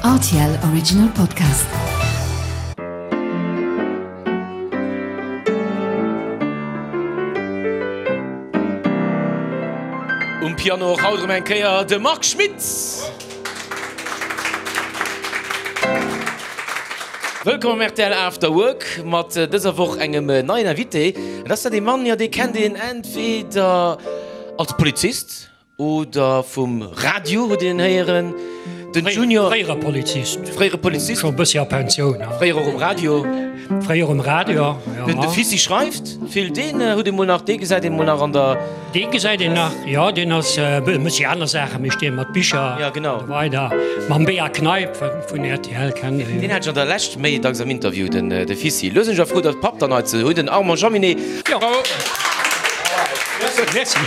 Rtl Original Podcast. Um Piano och haut erëm eng Kéier de Marc Schmitz. Wëllkomm am rtl After Work mat dëser Woch engem neien Invité. Et ass dat ee Mann, jo dee kennt een entweder als Polizist Oder vum Radio huet een héieren. Den Junior. Fréiere Polizist. Fréiere Polizist. Scho e bëssi a Pensioun. Fréier och um Radio. Fréier um Radio, jo. Den de Fissi schreift vill. Deen huet ee mol nach, dee gesäit ee mol nach an der. Dee gesäit een nach, jo. Deen ass, mécht déi aner Saachen, mécht dee mat Bicher. Ja, genau. An esou weider. Mam Bea Kneip vun rtl kennt ee jo. Deen hat ech an der Lescht méi dacks am Interview, den de Fissi. Lo sinn ech awer frou, datt Papp dann hei ze hunn, den Armand Jaminet. Jo. Merci.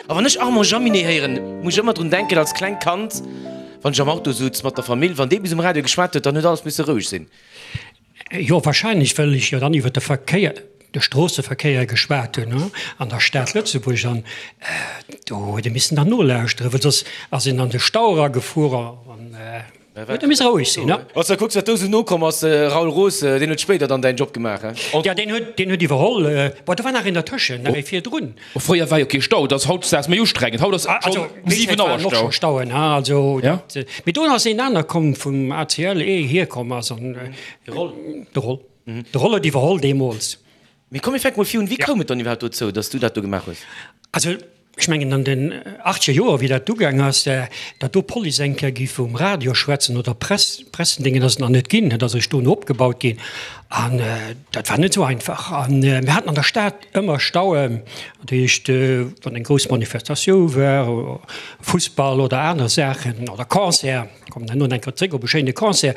A wann ech Armand Jaminet héieren, muss ech ëmmer drun denken, als klengt Kand, wann ech am Auto sutz mat der Famill, wann dee bis um Radio geschwat huet, dann huet alles misse roueg sinn. Jo, wahrscheinlech, well ech jo dann iwwer de Verkéier, de Stroosseverkéier geschwat hunn an der Stad Lëtzebuerg an do huet ee missen dann nolauschteren, well soss ass een an de Stau eragefuer an. Huet e misse roueg sinn, ne? Wann s de kucks, wat do esou nokomm ass, Raoul Roos, deen huet spéider dann däin Job gemaach, he? Jo, deen huet, deen huet iwwerholl. Bon, do war nach een dertëschen, nach ee virdrun. Fréier war jo kee Stau, dat ass hautdesdaags méi ustrengend. Haut ass schonn um 7 Auer Stau. Och scho Stauen, he? Also, dat, mee do ass een aner komm vum ACL, ee hierkomm ass an. De Roll. De Roll. De Roll huet iwwerholl deemools. Mee komm, mir fänke mol vir un. Wéi koum et dann iwwerhaapt dozou, datt s du dat do gemaach hues? Also, ech mengen an den achtzeger Joer, wéi dat ugaang ass, datt do d'Police eng Kéier géif um Radio schwätzen oder Press, Pressendéngen, ass et nach net ginn. Dat ass eréischt dono opgebaut ginn. An dat war net esou einfach. An mir haten an der Stad ëmmer Stauen, dat heescht, wann eng grouss Manifestatioun war, Fussball oder aner Saachen oder Concert, kommen herno nach eng Kéier zréck op e schéine Concert,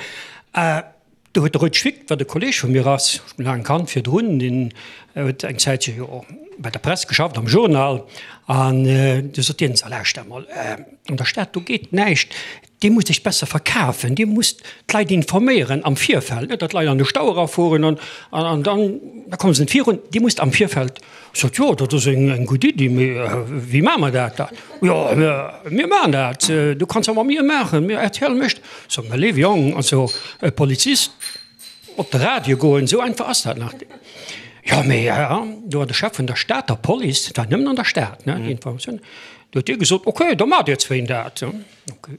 Do huet de Rued Schwick, wat e Kolleg vu mir ass, ech hunn laang kannt virdrun, deen huet eng Zäitche jo och bei der Press geschafft, am Journal, an du sot deen, So lauschter emol, an der Stad do geet näischt, Dir musst Iech besser verkafen, Dir musst d'Leit informéieren am Virfeld, net datt d'Leit an de Stau erafueren an an dann da komme se net virun, Dir musst am Virfeld. Ech sot, Jo, dat ass eng gutt Iddi, mee wéi maache mer dat dann? Jo, mir maachen dat, du kanns jo mat mir maachen, mir rtl mécht. So, mä léiwe Jong, also e Polizist op de Radio goen, esou einfach ass dat nach net. Jo, mee do war de Chef vun der Stater Police, dat war nëmmen an der Stad, ne, déi Informatioun, do huet dee gesot, okay, da maacht Dir zwéin dat. Okay.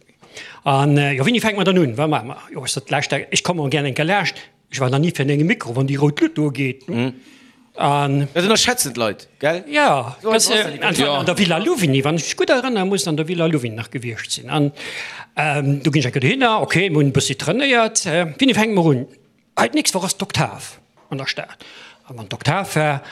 An jo, wéini fänke mer dann un, wat maache mer? Jo, ech sot, lauschter, ech kommen gär eng Kéier laascht, ech war nach ni virun engem Mikro, wann déi rout Luut do geet. An. Dat ënnerschätzen d'Leit, gell? Jo, an der Villa Louvigny, wann ech mech gutt erënneren, muss et an der Villa Louvigny nach gewiescht sinn. An do ginn ech eng Kéier dohinner, ok, mir hunn e bëssi trainéiert. Wéini fänke mer un? Hei, d'nächst Woch ass d'Oktav an der Stad. A wann d'Oktav war,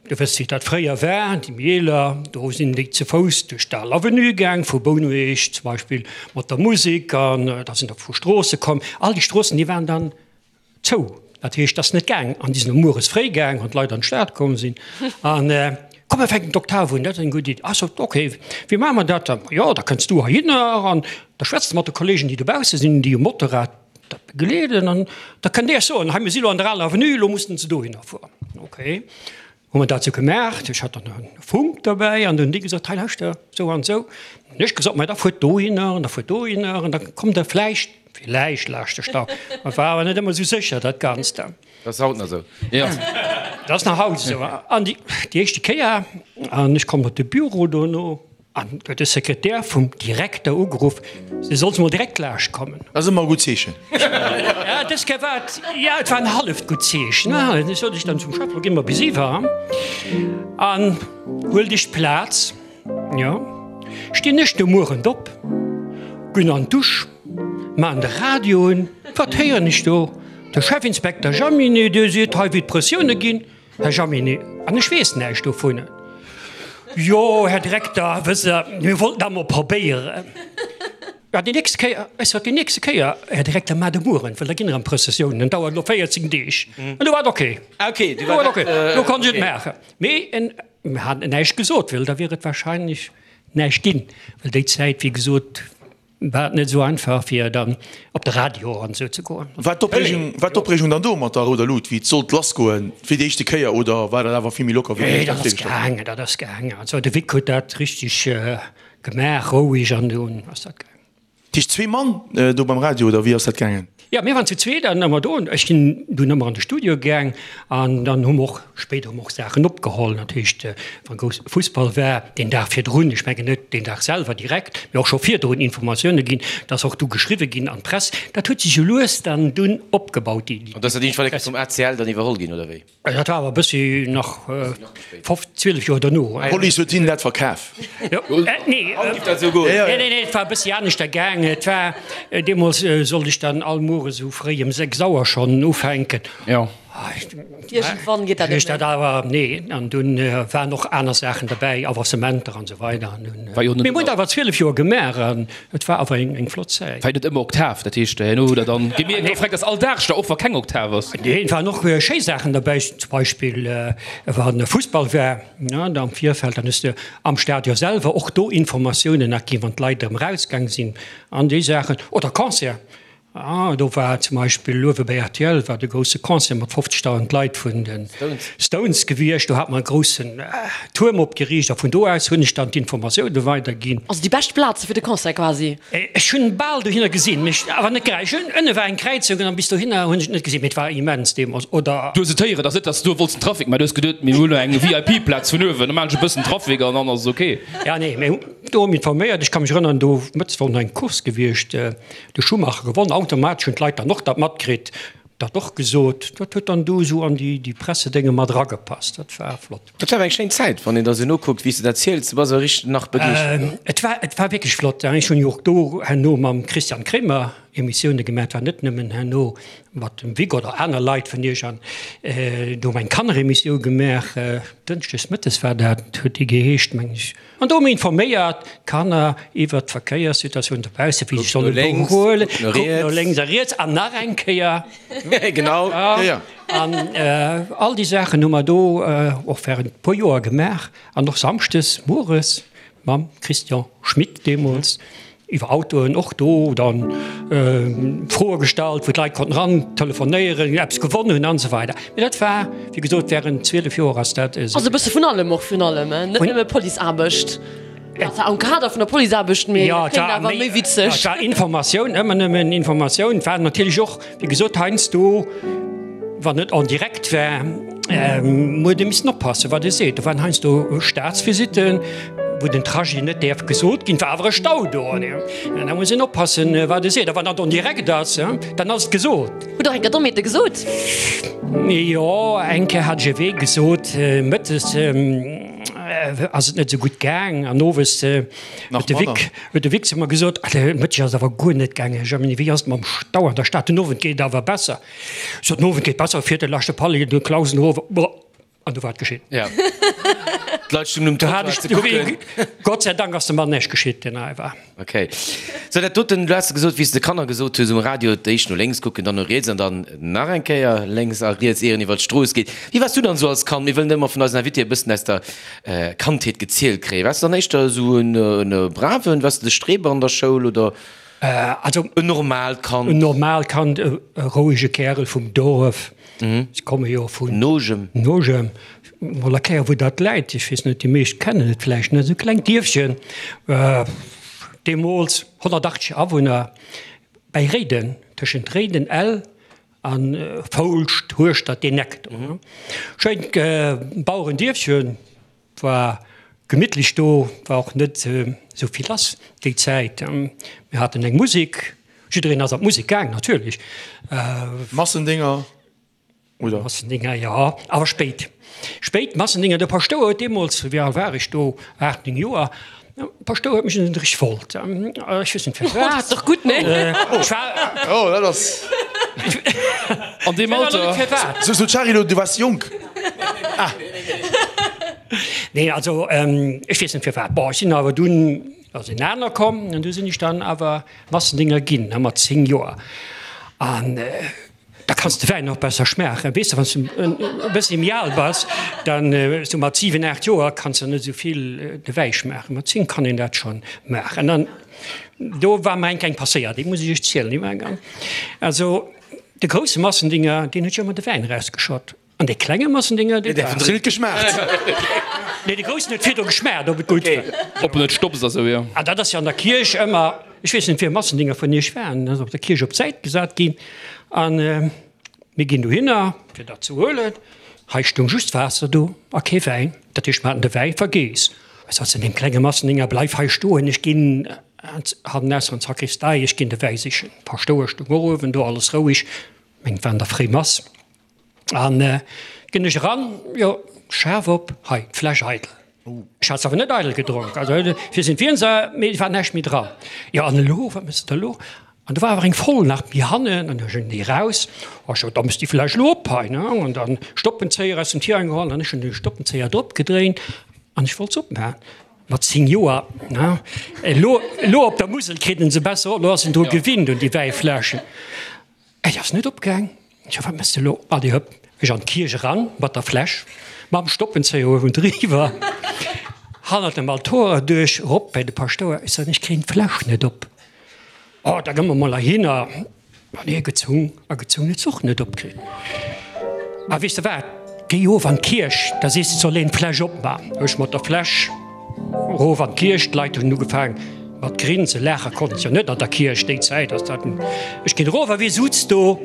du wëss wéi dat fréier war, déi méi eeler, do sinn déi ze Fouss duerch d'Al Avenue gaang, vu Bouneweg zum Beispill mat der Musek, an da sinn der vu Stroosse komm. All déi Stroossen, déi waren dann Zou. Dat heescht, et ass net gaang. An déi sinn och mueres fréi gaang, wann d'Leit an d'Stad komm sinn. An, komm, mir fänken d'Oktav un, dat ass eng gutt Iddi. Ah, sot, ok, wéi maache mer dat dann? Jo, da kënns du heihinner an da schwätz de mat de Kollegen, déi dobausse sinn, déi um Motorrad dat begleeden. An da kënnt Dir soen, hei, mir si lo an der aler Avenue, elo mussen se dohinner fueren. Ok. Hu mer dat sou gemaach, ech hat dann e Funk derbäi an hunn déi gesot, hei lauschter, sou an sou. Hunn ech gesot, ma da fuert dohinner an da fuert dohinner an da kommt der vläicht, villäicht laascht de Stau. Et war awer net ëmmer sou sécher dat Ganzt. Dat ass haut nach sou. Jo, dat ass nach haut esou. An déi éischte Kéier, an ech komm op de Büro dono, An huet de Sekretär vum Direkter ugeruff, se soll mol direkt laascht kommen. Dat ass ëmmer e gutt Zeechen. Ja, dës Kéier war et, ja, et war en halleft gutt Zeechen. Du sot ech dann zum Chef, lo gi mer bis iwwer an huel dech Plaz. Jo, stinn ech de Muerent op, ginn an d'Dusch, maan de Radio un, wat héieren ech do? De Chefinspekter Jaminet, dee seet hei, wéi d'Pressioune ginn. Här Jaminet, an ech weess näischt dovun. Jo, Här Direkter, wësst Der, mir wollten dat emol probéieren. Ja, déi nächste Kéier, ech sot, déi nächste Kéier, Här Direkter, maacht e mueren, well da ginn erëm Prëssessiounen, dat dauert elo 14 Deeg. An du war et ok. Ok, du war et ok. Do konnt ech et maachen. Mee en, mir haten näischt gesot, well da wier et wahrscheinlech näischt ginn, well déi Zäit, wéi gesot, War et net esou einfach fir dann op de Radio an esou ze goen? War d'Opreegung, war d'Opreegung dann do mat der rouder Lut, wéi et sollt lassgoen, fir déi éischte Kéier, oder war dat awer vill méi locker wéi Nee, dat ass gaangen, dat ass gaangen. Also de Vic huet dat richteg gemaach, roueg, an dunn ass dat gaangen. Dat heescht zwee Mann do beim Radio, oder wéi ass dat gaangen? Jo, mir waren zu zweet an ëmmer do. Ech sinn dunn ëmmer an de Studio gaang an dann hu mer och spéider hu mer och Saachen opgeholl. Dat heescht, wa grouss Fussball war, deen Dag virdrun, ech mengen net deen Dag selwer direkt, mee och scho virdrun Informatioune ginn, dat ass och du geschriwwe ginn an d'Press. Dat huet sech jo lues dann dunn opgebaut, déi. An dat ass dat iergendwann eng Kéier vum ACL dann iwwerholl ginn, oder wéi? Dat war awer e bëssi nach 12 Joer dono. D'Police huet hinnen dat verkaf. Nee, nee, et war e bëssi aneschter gaang. Et war deemools sollt ech dann all Muere sou fréi ëm 6 Auer schonn ufänken. Iergendwann geet dat net méi. Awer nee, an dunn waren och aner Saachen derbäi, Avancementer an esou weider. Mir hunn et awer 12 Joer gemaach an et war awer eng flott Zäit. War jo net ëmmer Oktav, dat heescht herno hutt der dann gemierkt, oh freck, dat ass all Dag da, och wa keng Oktav ass. Nee, et waren och schéi Saachen derbäi, zum Beispill wann Fussball war, ne, am Virfeld, dann hues de am Stadion selwer och do Informatiounen nach ginn, wann d'Leit erëm erausgaang sinn an déi Saachen. Oder Concert, Ah, do war zum Beispill uewe bei rtl war de grousse Concert mat 50.000 Leit vun de Stones gewiescht. Do hat mer e groussen Tuerm opgeriicht a vun do aus hunn ech dann d'Informatioune weiderginn. Also déi bescht Plaze fir de Concert quasi? Ech hunn bal dohinner gesinn, mee awer net grad. Ech hunn, ënne war eng Kräizung an bis dohinner hunn ech et net gesinn, mee et war immens deemools. Oder. Du hues et héieren, et ass net, dass du do wollts den Trafic, mä du hues geduet, mir hunn elo eng VIP-Plaz vun uewen, da maachen ech e bëssen Trafic an dann ass et ok. Ja, nee, mir hunn do informéiert. Ech ka mech erënneren, do mëttes war och nach eng Course gewiescht. De Schumacher gewonn. Automatesch hunn d'Leit dann och dat matkritt, dat och gesot. Dat huet dann do esou an déi Pressedénge mat eragepasst. Dat war flott. Dat war awer eng schéin Zäit, wann een der esou nokuckt, wéi s de dat ziels. Du bass awer richteg nach begeeschtert. Et war, et war wierklech flott. Ech hunn jo och do herno mam Christian Kremer Emissioune gemaach. Et war net nëmmen herno mat dem Vic oder aner Leit vun iech. An do hu mer eng Kanneremissioun gemaach, dënschdes mëttes war dat, huet déi geheescht, meng ech. An do hu mir informéiert d'Kanner iwwert d'Verkéierssituatioun dobausse, wéi se solle behuelen, kuck no lénks a riets an nach eng Kéier. Genau. An all déi Saachen hu mer do och während e puer Joer gemaach an och samschdes mueres mam Christian Schmit deemools. Iwwer Autoen och do dann Froe gestallt, wou d'Leit konnten eran telefonéieren, eppes gewonn hunn an esou weider. Mee dat war, wéi gesot, während 12 Joer ass dat esou. Also e bësse vun allem och, vun allem, net nëmme Policeaarbecht. Ja, zwar am Kader vun der Policeaarbecht, mee dat kléngt awer méi witzeg. Jo, et war Informatioun, ëmmer nëmmen Informatioun. Et war natierlech och, Wéi gesot, heiansdo, wann et en direct war, huet ee missen oppassen, wat ee seet. Do waren heiansdo Staatsvisitten, wou den Trajet net däerf gesot ginn, war awer e Stau do. An da muss een oppassen, wat ee seet. A wann dat en direct ass, dann ass et gesot. Hutt Der eng Kéier Dommheete gesot? Jo, eng Kéier hat ech e Wee gesot. Mëttes ass et net esou gutt gaang an owes huet de Vic, huet de Vic zu mer gesot, Alter, Mëtteg ass awer guer net gaangen. Germiny, wéi ass et mam Stau an der Stad? Den Owend geet et awer besser. Ech sot, Den Owend geet besser, fiert de leschte Palli de Klausenhof, boah, an du war et geschitt. Ja. D'Leit stungen um Trottoir ze kucken. Gott sei Dank ass dem Mann näischt geschitt, deen hei war. Ok. Sou, dat doten, du has gesot, wéi s de Kanner gesot hues um Radio, d'éischt no lénks kucken, dann no riets an dann nach eng Kéier lénks a riets, ier een iwwer d'Strooss geet. Wéi waars du dann esou als Kand? Mir wëllen ëmmer vun eisen Invitéë e bëssen aus der Kandheet gezielt kréien. Waars de dann éischter esou en braven, waars de de Streber an der Schoul oder en normaalt Kand? En normaalt Kand, e rouege Kärel vum Dorf. Ech komme jo vun Nogem. Nogem. Mol erklären, wou dat läit. Ech weess net, déi meescht kennen et vläicht net. Esou e klengt Dierfchen, deemools 180 Awunner, bäi Réiden, tëschent Réiden, Ell A Foulscht, Hueschtert, deen Eck do. Schéint Bauerendierfchen, war gemittlech do, war och net esou vill lass déi Zäit. Mir haten eng Musek, jiddereen ass an d'Musek gaang natierlech. Massendinger oder? Massendinger, jo, awer spéit. Spéit Massendinger. De Paschtouer huet deemools, wéi al war ech do, 8, 9 Joer, Paschtouer huet mech un den Drich wollt. Ech weess net firwat. Dat ass dach gutt, nee? Ech war. Oh, dat ass. An deem Alter. So, so Charilo, du waars jonk. Ah. Nee, also ech weess net firwat. Bon, ech sinn awer dunn, ass en aner komm an du sinn ech dann awer Massendinger ginn, mat 10 Joer. An. Da kanns de Wäin och besser schmaachen. Weess de, wann s de e bëssi méi al bass, dann esou mat 7, 8 Joer kanns de net esou vill de Wäi schmaachen. Mat 10 kann een dat schonn maachen. An do war mer eng kleng passéiert, déi muss ech iech zielen. Déi war ganz, also de grousse Massendinger, deen huet jo ëmmer de Wäin erausgeschott. An dee klenge Massendénger, dee war. Huet geschmaacht. Nee, de groussen huet virdru geschmaacht, ob et gutt war. Ob en net stopst a sou, jo. An dat ass jo an der Kierch ëmmer, ech weess net, wien Massendénger vun iech war, en ass op der Kierch op d'Säit gesat ginn. An mir ginn dohinner, fir dat ze huelen. Hei stoung just Waasser do a kee Wäin. Dat heescht, mer haten de Wäi vergeess. Ech sot zu deem klenge Massendénger, Bleif hei stoen, ech ginn hannenaus an d'Sakristei, ech ginn de Wäi sichen. D'Paschtouer stoung och uewen do, alles roueg. Meng, et war an der Fréimass. An ginn ech eran, jo, Schaf op, hei, d'Fläsch eidel. Ech hat se awer net eidel gedronk, also fir sinn d'Wien se, mee et war näischt méi dran. Jo, an elo, wat méchs de da elo? An do war awer eng voll nach méi hannen, an du ech déi eraus, oh, ech sot, da méchs déi Fläsch elo op hei, ne? An dann Stoppenzéier aus dem Tirang geholl, an ech hunn de Stoppenzéier drop gedréint an ech wollt se opmaachen. Mat 10 Joer, ne? Elo, elo op der Musel kritt en se besser op, elo ass en dru gewinnt un déi Wäifläschen. Et ass net opgaang. Tjo, wat mëss de lo? Allez hëpp, ech an d'Kierch eran mat der Fläsch, mam Stoppenzéier uewendriwwer, hannert dem Altor erduerch, rop bei de Paschtouer. Ech soen, ech kréien d'Fläsch net op. Oh, da gëmm mer mol heihinner. An hie gezung a gezung, huet se och net opkritt. A weess de wat, géi of an d'Kierch, da sees de, et soll een d'Fläsch opman. Ech mat der Fläsch Erof an d'Kierch, d'Leit hunn ugefaang mat grinsen, laache konnten se jo net an der Kierch, déi Zäit ass dat. Ech ginn erof a wie sutz do?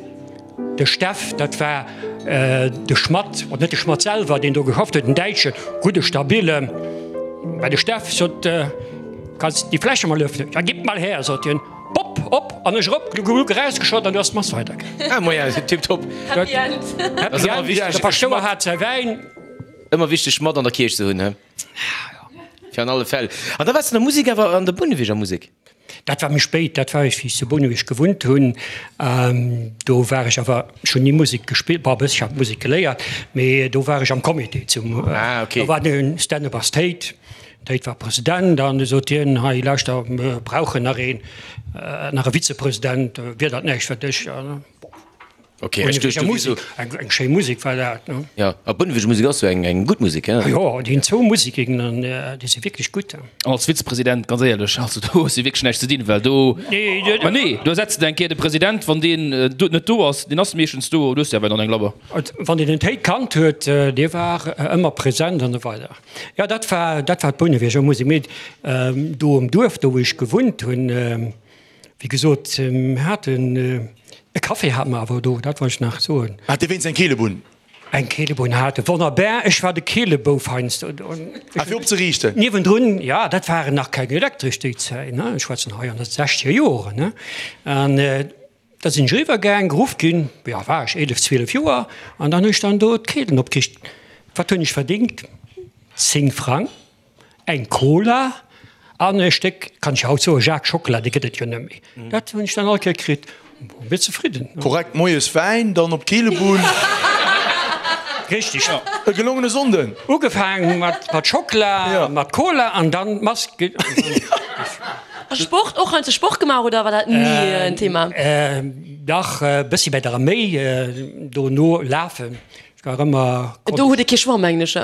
De Steff, dat war de Schmatt, oder net de Schmatt selwer, deen do geschafft huet, en Däitschen, gudde stabile. Mä de Steff sot, Kanns déi Fläsche mol öffnen? Ja, gib mal her, sot hien, pop, op an ech erop, gluck, gluck, erausgeschott an du ass d'Mass weidergaang. Ah, moien, tiptop. Happy End. Happy End, de Paschtouer hat säi Wäin. Ëmmer wichteg mat an der Kierch ze hunn, he? Fir an alle Fäll. An da waars de an der Musek awer, an der Bouneweger Musek? Dat war méi spéit, dat war ech, wéi ech zu Bouneweg gewunnt hunn. Do war ech awer, ech hunn ni Musek gespillt, bon e bëssche hat Musek geléiert, mee do war ech am Comité zum, do war den Stänne Bass Théid, Théid war President an du sot hien, hei lauschter, mir brauchen nach een, nach e Vizepresident, wier dat näischt fir dech? Ok, ech duecht du wiers esou. Eng schéi Musek war dat, ne? Jo, a Bouneweg Musek ass jo eng eng gutt Musek, he? Jo, déi hunn zwou Museken an déi si wierklech gutt. An als Vizepresident, ganz éierlech, also do hues du wierklech näischt ze dinn, well do, ma nee, do ersetz de eng Kéier de President, wann deen net do ass, deen ass meeschtens do, du hues jo awer dann eng Labber. Wann een den Théid kannt huet, dee war ëmmer present an esou weider. Jo, dat war, dat war d'Bouneweger Musek. Mee do um Duerf, do wou ech gewunnt hunn, Wéi gesot, mir haten e Café hate mer awer do, dat wollt ech nach soen. Hat Dir wéinst eng Keelebunn? Eng Keelebunn hate, wonnerbar. Ech war de Keelebouf heiansdo do. Ah, fir opzeriichten? Niewendrun, ja, dat waren nach keng elektresch déi Zäit, ne, ech schwätzen hei an de sechzeger Joren, ne. An da sinn ech eriwwer gaang, geruff ginn, jo, war ech 11, 12 Joer, an dann hunn ech dann do d'Keelen opgeriicht. Wat hunn ech verdéngt? 10 Frang. Eng Cola an e Stéck, kann ech jo haut soen, Jacques Schockela, dee gëtt et jo net méi. Dat hunn ech dann all Kéier kritt. Bon, wier zefridden. Korrekt, moies Wäin, dann op d'Keelebunn. Richtig. E gelongene Sonnden. Ugefaang mat Schockela, mat Cola an dann d'Mask. A Sport, och heiansdo Sport gemaach oder war dat ni en Thema? Dach, e bëssi bei der Arméi, dono lafen. Ech war ëmmer. Do hutt e kee Choix, mengen ech.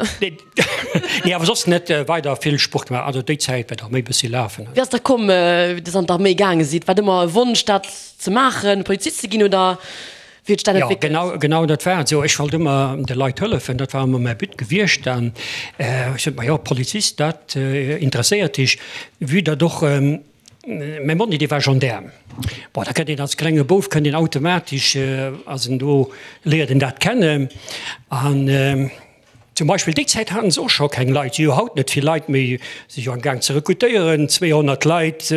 Nee, awer soss net weider vill Sport gemaach. Also déi Zäit war d'Arméi bëssi lafen. Wéi ass da komm, wéi Dir an d'Arméi gaange sidd? War et ëmmer e Wonsch, dat ze maachen, Polizist ze ginn, oder wéi huet sech dat entwéckelt? Jo, genau, genau dat war et esou. Ech wollt ëmmer de Leit hëllefen, dat war ëmmer mäi But gewiescht. An ech sot, ma jo, Polizist, dat interesséiert dech, vue datt och mäi Monni, dee war Gendaarm. Bon, da kënnt een als klenge Bouf, kënnt een automatesch, ass en do, léiert en dat kennen. An Zum Beispill déi Zäit haten se och scho keng Leit, si hu haut net vill Leit méi, si jo am Gaang ze rekrutéieren, 200 Leit,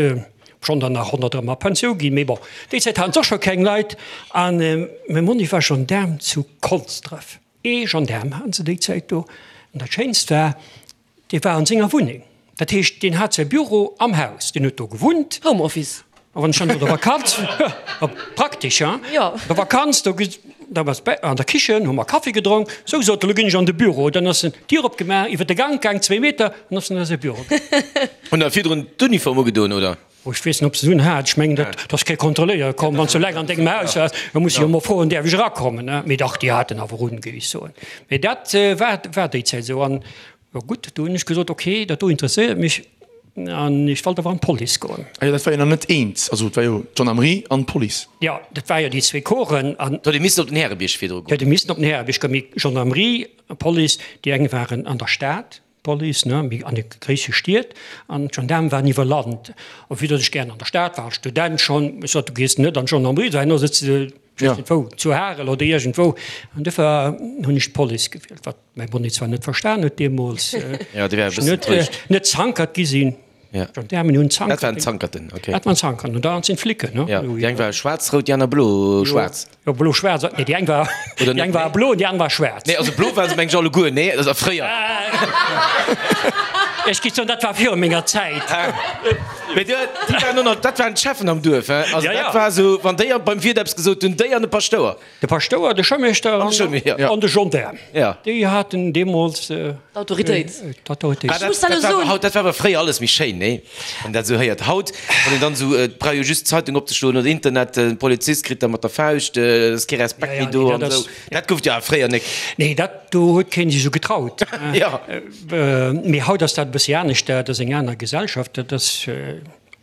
obschonn der nach 100 erëm a Pensioun ginn, mee bon, déi Zäit haten se och scho keng Leit. An mäi Monni war Gendaarm zu Konsdref, ee Gendaarm haten se déi Zäit do. An dat Schéinst war, Dee war an senger Wunneng. Dat heescht, deen hat säi Büro am Haus, deen huet do gewunnt. Home Office. A wann ech dann do der Vakanz, praktesch, hein? Jo. Der Vakanz, do, da war bäi an der Kichen, hu mer Kaffi gedronk. Sou, sot e, lo ginn ech an de Büro. Dann ass en d'Dier opgemaach, iwwer de Gank gaang, zwéi Meter, an ass en a säi Büro gaang. Hunn der virdrun d'Uniform ugedoen, oder? Oh, ech weess net, ob se se un hat. Ech mengen, dat ass kee Kontrolléier komm. Wann s du eleng an dengem Haus waars, da muss ech jo emol froen, däerf ech erakommen, ne? Mee dach, déi haten awer un, géif ech soen. Mee dat war, war déi Zäit esou. An, jo gutt, do hunn ech gesot, okay, dat do interesséiert mech. An ech wollt awer an d'Police goen. Ah jo, dat war jo nach net eent. Also et war jo d'Gendarmerie an d'Police. Jo, dat war jo déi zwee Corpsen. An. Do huet ee missen op den Härebierg virdru goen. Huet ee missen op den Härebierg goen. Mee Gendarmerie a Police, déi eng waren an der Stad, d'Police, ne, méi an de gréisse Stied, an d'Gendaarme waren iwwer Land. A vue datt ech gären an der Stad war, als Student schonn, ech sot, du gees net an d'Gendarmerie, do herno sëtz de, ech weess net wou, zu Harel oder iergendwou. An duerfir hunn ech d'Police gewielt, wat Mäi Bonnet zwar net verstan huet deemools, Ja, dee war e bëssen enttäuscht. net Zankert gi sinn. Ja. Gendaarmen hunn Zankert. Dat waren Zankerten, okay. Dat waren Zankerten, an da sinn d'Flicken, ne? Ja, déi eng war schwaarz-rout, déi aner blo-schwaarz. Jo, blo-schwaarz, nee, déi eng war, Oder déi net eng war méi? blo an déi aner war schwaarz. Nee, also blo war se meng ech alleguer, nee, also fréier. Ech gi soen, dat war viru menger Zäit. Mee déi waren och nach, dat waren d'Cheffen am Duerf, hein? Also Ja, ja. dat war esou, wann déi beim Wiert eppes gesot hunn, déi an de Paschtouer. De Paschtouer, de Schoumeeschter an de Gendaarm, déi haten deemools d'Autoritéit. Dat war awer fréier alles méi schéin, nee? Wann een dat esou héiert. Haut, wann een dann esou, et brauch jo just d'Zeitung opzeschloen oder Internet, de Polizist kritt da mat der Fauscht, et ass kee Respekt méi do an esou. Dat gouf et jo awer fréier nek. Nee, dat do huet keen sech esou getraut. Mee haut ass dat e bëssi anescht, dat ass eng aner Gesellschaft, dat ass.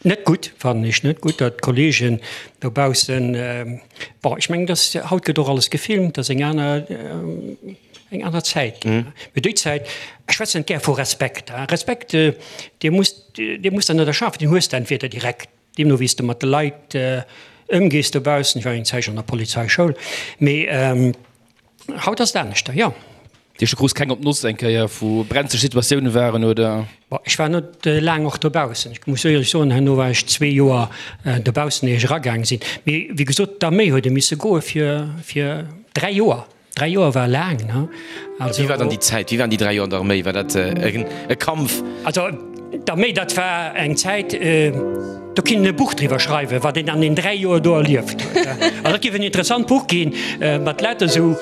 Net gutt, fannen ech, net gutt, datt d'Kollegen dobaussen, bon, ech mengen, datt haut gëtt och alles gefilmt, dat ass eng aner, eng aner Zäit ginn. Mee déi Zäit, ech schwätzen net gär vu Respekt, hein, Respekt, dee muss, dee muss der net erschafen, deen hues de entweder direkt, deemno wéi s de mat de Leit ëmgees dobaussen. Ech war eng Zäitchen an der Polizeischoul, mee. Haut ass et aneschter, jo. Dir scho krus keng op d'Noss eng Kéier vu brenzeg Situatioune waren, oder? Bon, ech war net laang och dobaussen. Ech muss éierlech soen, herno war ech zwee Joer dobaussen, ier ech eragaang sinn. Mee wéi gesot, d'Arméi huet e misse goe fir, fir dräi Joer. Dräi Joer war laang, ne? Also. Wéi war dann déi Zäit? Wéi waren déi dräi Joer an der Arméi? War dat e Kampf? Also d'Arméi, dat war eng Zäit, do kinnt een e Buch driwwer schreiwen, wat een an den dräi Joer do erlieft huet. Also dat géif en interessant Buch ginn, mat lauter esou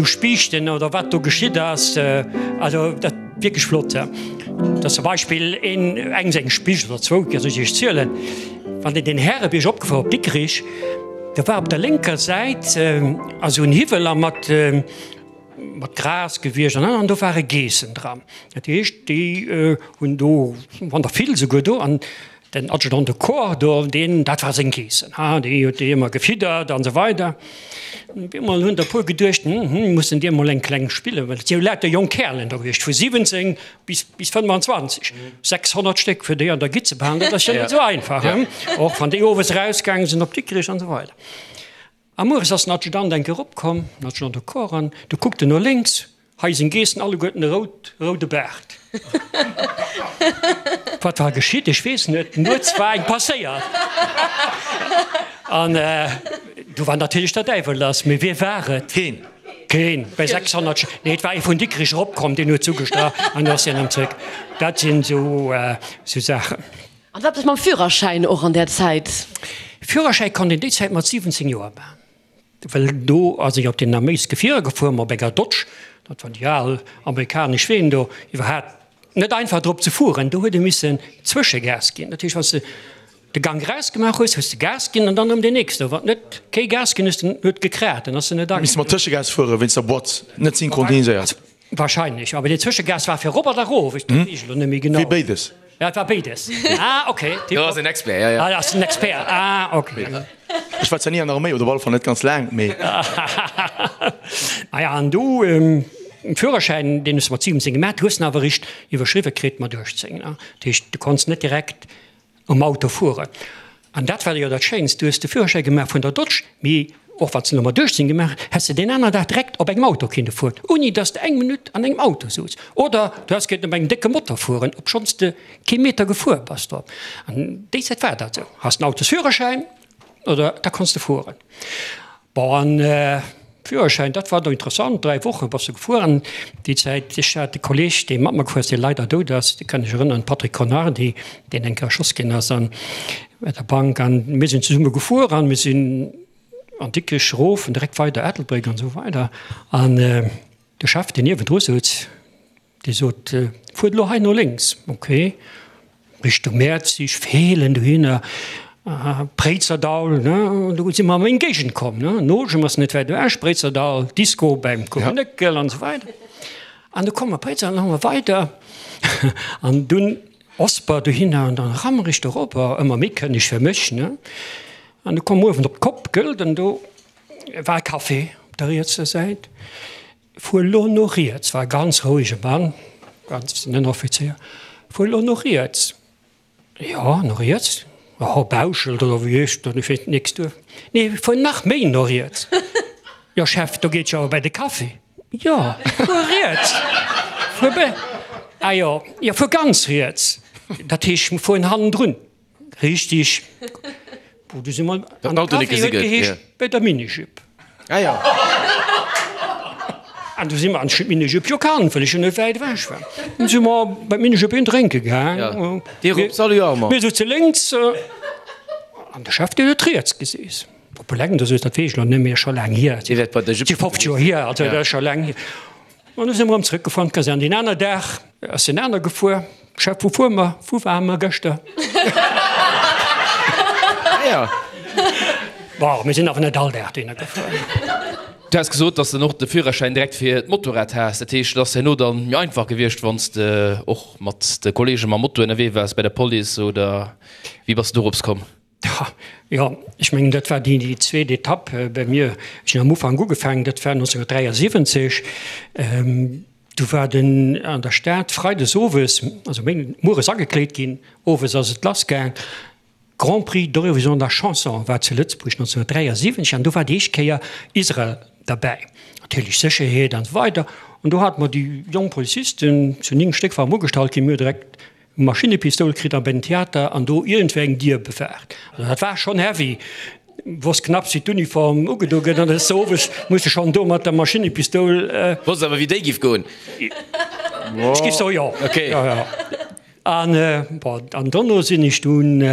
Spiichten oder wat do geschitt ass. Also dat wierklech flott. Dat ass zum Beispill een, eng seng Spiicht oder zwou, soll ech iech zielen, wann een den Härebierg opgefuer op Dikrich, do war op der lénker Säit esou en Hiwwel a mat, mat Gras gewiescht an an do ware Geessen dran. Dat heescht, déi hunn do, wann der vill souguer do, an den Adjudant de Corps do, deen, dat war seng Geessen, ha, déi huet déi ëmmer gefiddert an esou weider. Op eemol hunn der e puer geduecht, hm, hm, mussen dir emol eng kleng spillen, well et si jo lauter jonk Kärelen do gewiescht, vu 17 bis, bis 25, 600 Stéck fir déi an der Gitt ze behalen, dat ass jo net esou einfach, hm, och wann déi owes erausgaange sinn op Dikrech an esou weider. A mueres ass den Adjudant enk eropkomm, den Adjudant de Corps, an du kuckt en no lénks, hei seng Geessen alleguerten e rout, roude Baart. Wat war geschitt? Ech weess net, nuets war eng passéiert. An du war natierlech der Däiwel lass. Mee wie war et? Keen. Keen, bei 600 Sch-, nee, et war ee vun Dikrich eropkomm, deen huet zugestrach an du ass hien erëm zréck. Dat sinn esou Saachen. An wat ass mam Führerschäin och an där Zäit? Führerschäi konnt een déi Zäit mat 17 Joer maachen, well do ass ech op den Arméisgefierer gefuer, op enger Dodge, dat waren déi al amerikanesch Ween do, iwwerhaapt net einfach drop ze fueren, do huet ee missen Zwëschegas ginn. Dat heescht, wann s de de Gank erausgemaach hues, hues de Gas ginn an dann erëm deen nächsten. Wann net kee Gas ginn hues, dann huet gekraat, dann ass en net Misst mat Tëschegas fueren, wéinst der Boîte net synchroniséiert. Wahrscheinlech, awer deen Zwëschegas war fir erop an erof, ech weess elo net méi genau. Wéi béides. Ja, et war béides. Ah, okay. Do ass en Expert, ja, ja. Ah, ass en Expert, ah, okay. Ech war zwar ni an der Arméi, oder op alle Fall net ganz laang, mee. Ah ja, an du, den Führerschäin, deen hues de mat 17 gemaach, du hues en awer eréischt iwwerschriwwe kritt mat 18, ne? Dat heescht, du konns net direkt um Auto fueren. An dat war jo dat Schéinst, du hues de Führerschäi gemaach vun der Dodge, mee och wann s de elo mat 18 gemaach hues, häss de deen aner Dag direkt op engem Auto kinne fueren, ouni dass de eng Minutt an engem Auto souz. Oder du häss kéinten op engem décke Motor fueren, obschonns de kee Meter gefuer bass drop. An déi Zäit war dat esou, Has den Autosführerschäin oder da konns de fueren. Bon, an Führerschäin, dat war do interessant, 3 Woche bass de gefuer. An déi Zäit, ech hat e Kolleg, dee mat mer gefuer ass, dee leider dout ass, dee kann ech erënneren, Patrick Conardi, deen eng Kéier erschoss ginn ass an bei der Bank. An mir sinn zesumme gefuer an mir sinn an Dikrech erof an direkt weider Ettelbréck an esou weider. An de Chef, deen niewendru souz, Dee sot, Fuert elo hei no lénks. Ok, Richtung Mäerzig, Feelen, dohinner, Préizerdaul, ne, do si mer a meng Géigend komm, ne. Noljem ass net wäit ewech, Préizerdaul, Disco beim Kuchenëckel an esou weider. An du komme mer Préizerdaul, an da hu mer weider an dunn. Osper dohinner an dann Rammerich dorobber, ëmmer méi kënneg fir mech, ne. An du komm uewen op d'Kopp, gëllt, an do war e Café op der rietser Säit. Fuer lo no riets, war e ganz rouege Mann, ganz den Ënneroffizéier, fuer lo no riets. Jo, no riets, oh, Bauschelt oder wéi heescht dat, ech weess nix duer. Nee, fuer nach méi no riets. Jo, Chef, do geet jo awer bei de Café. Jo, fuer riets. Fuer be, ah jo, jo, fuer ganz riets. Dat heescht, mir fueren hannendrun. Richtig. Bon, du si mer an de Café huet geheescht bei der Minijupe. Ah jo. An du si mer an d'Minijupe jo kannt, well ech jo net wäit ewech war. Dunn si mer bei d'Minijupe een drénke gaang. Dir op, salut Armand. Mir souze lénks an de Chef, deen huet riets geseess. Op eleng, dat weess ech elo net méi, ass scho laang hier. Dir wäert bei der Jupe. Si 50 Joer hier, also dat ass scho laang hier. An du si mer erëm zrëckgefuer an d'Kasern. Deen aner Dag ass en aner gefuer. Chef, wou fuere mer? Wou ware mer gëschter? Ja. Bon, mir sinn awer net all Dag dohinner gefuer. Du has gesot, dass de och de Führerschäin direkt fir d'Motorrad has. Dat heescht, et ass herno dann méi einfach gewiescht, wann s de och mat de Kollege mam Moto ënnerwee waars bei der Police, oder wéi bass de dorops komm? Jo, ech mengen, dat war déi zweet Etapp bei mir. Ech hunn am Ufank ugefaangen, dat war 1973. Du war den an der Stad freides owes, also méi mueres agekleet ginn, owes ass et lassgaang. Grand Prix d'Eurovision de la Chanson war zu Lëtzebuerg 1973 an do war déi éischt Kéier Israel derbäi. Natierlech Sécherheet an esou weider. An do hate mer déi jonk Polizisten, zu 9 Stéck waren mer ugestallt ginn, mir hu direkt Maschinnepistoul kritt a bei den Theater an do iergendwéi eng Dier bewaacht. Also dat war schonn heavy. Wosst knapps wéi d'Uniform ugedo gëtt an des owes muss de schonn do mat der Maschinnepistoul. Wosst awer wéi déi giff goen. Ech giff soen jo. Ok. Jo, jo. An bon, an dono sinn ech dunn,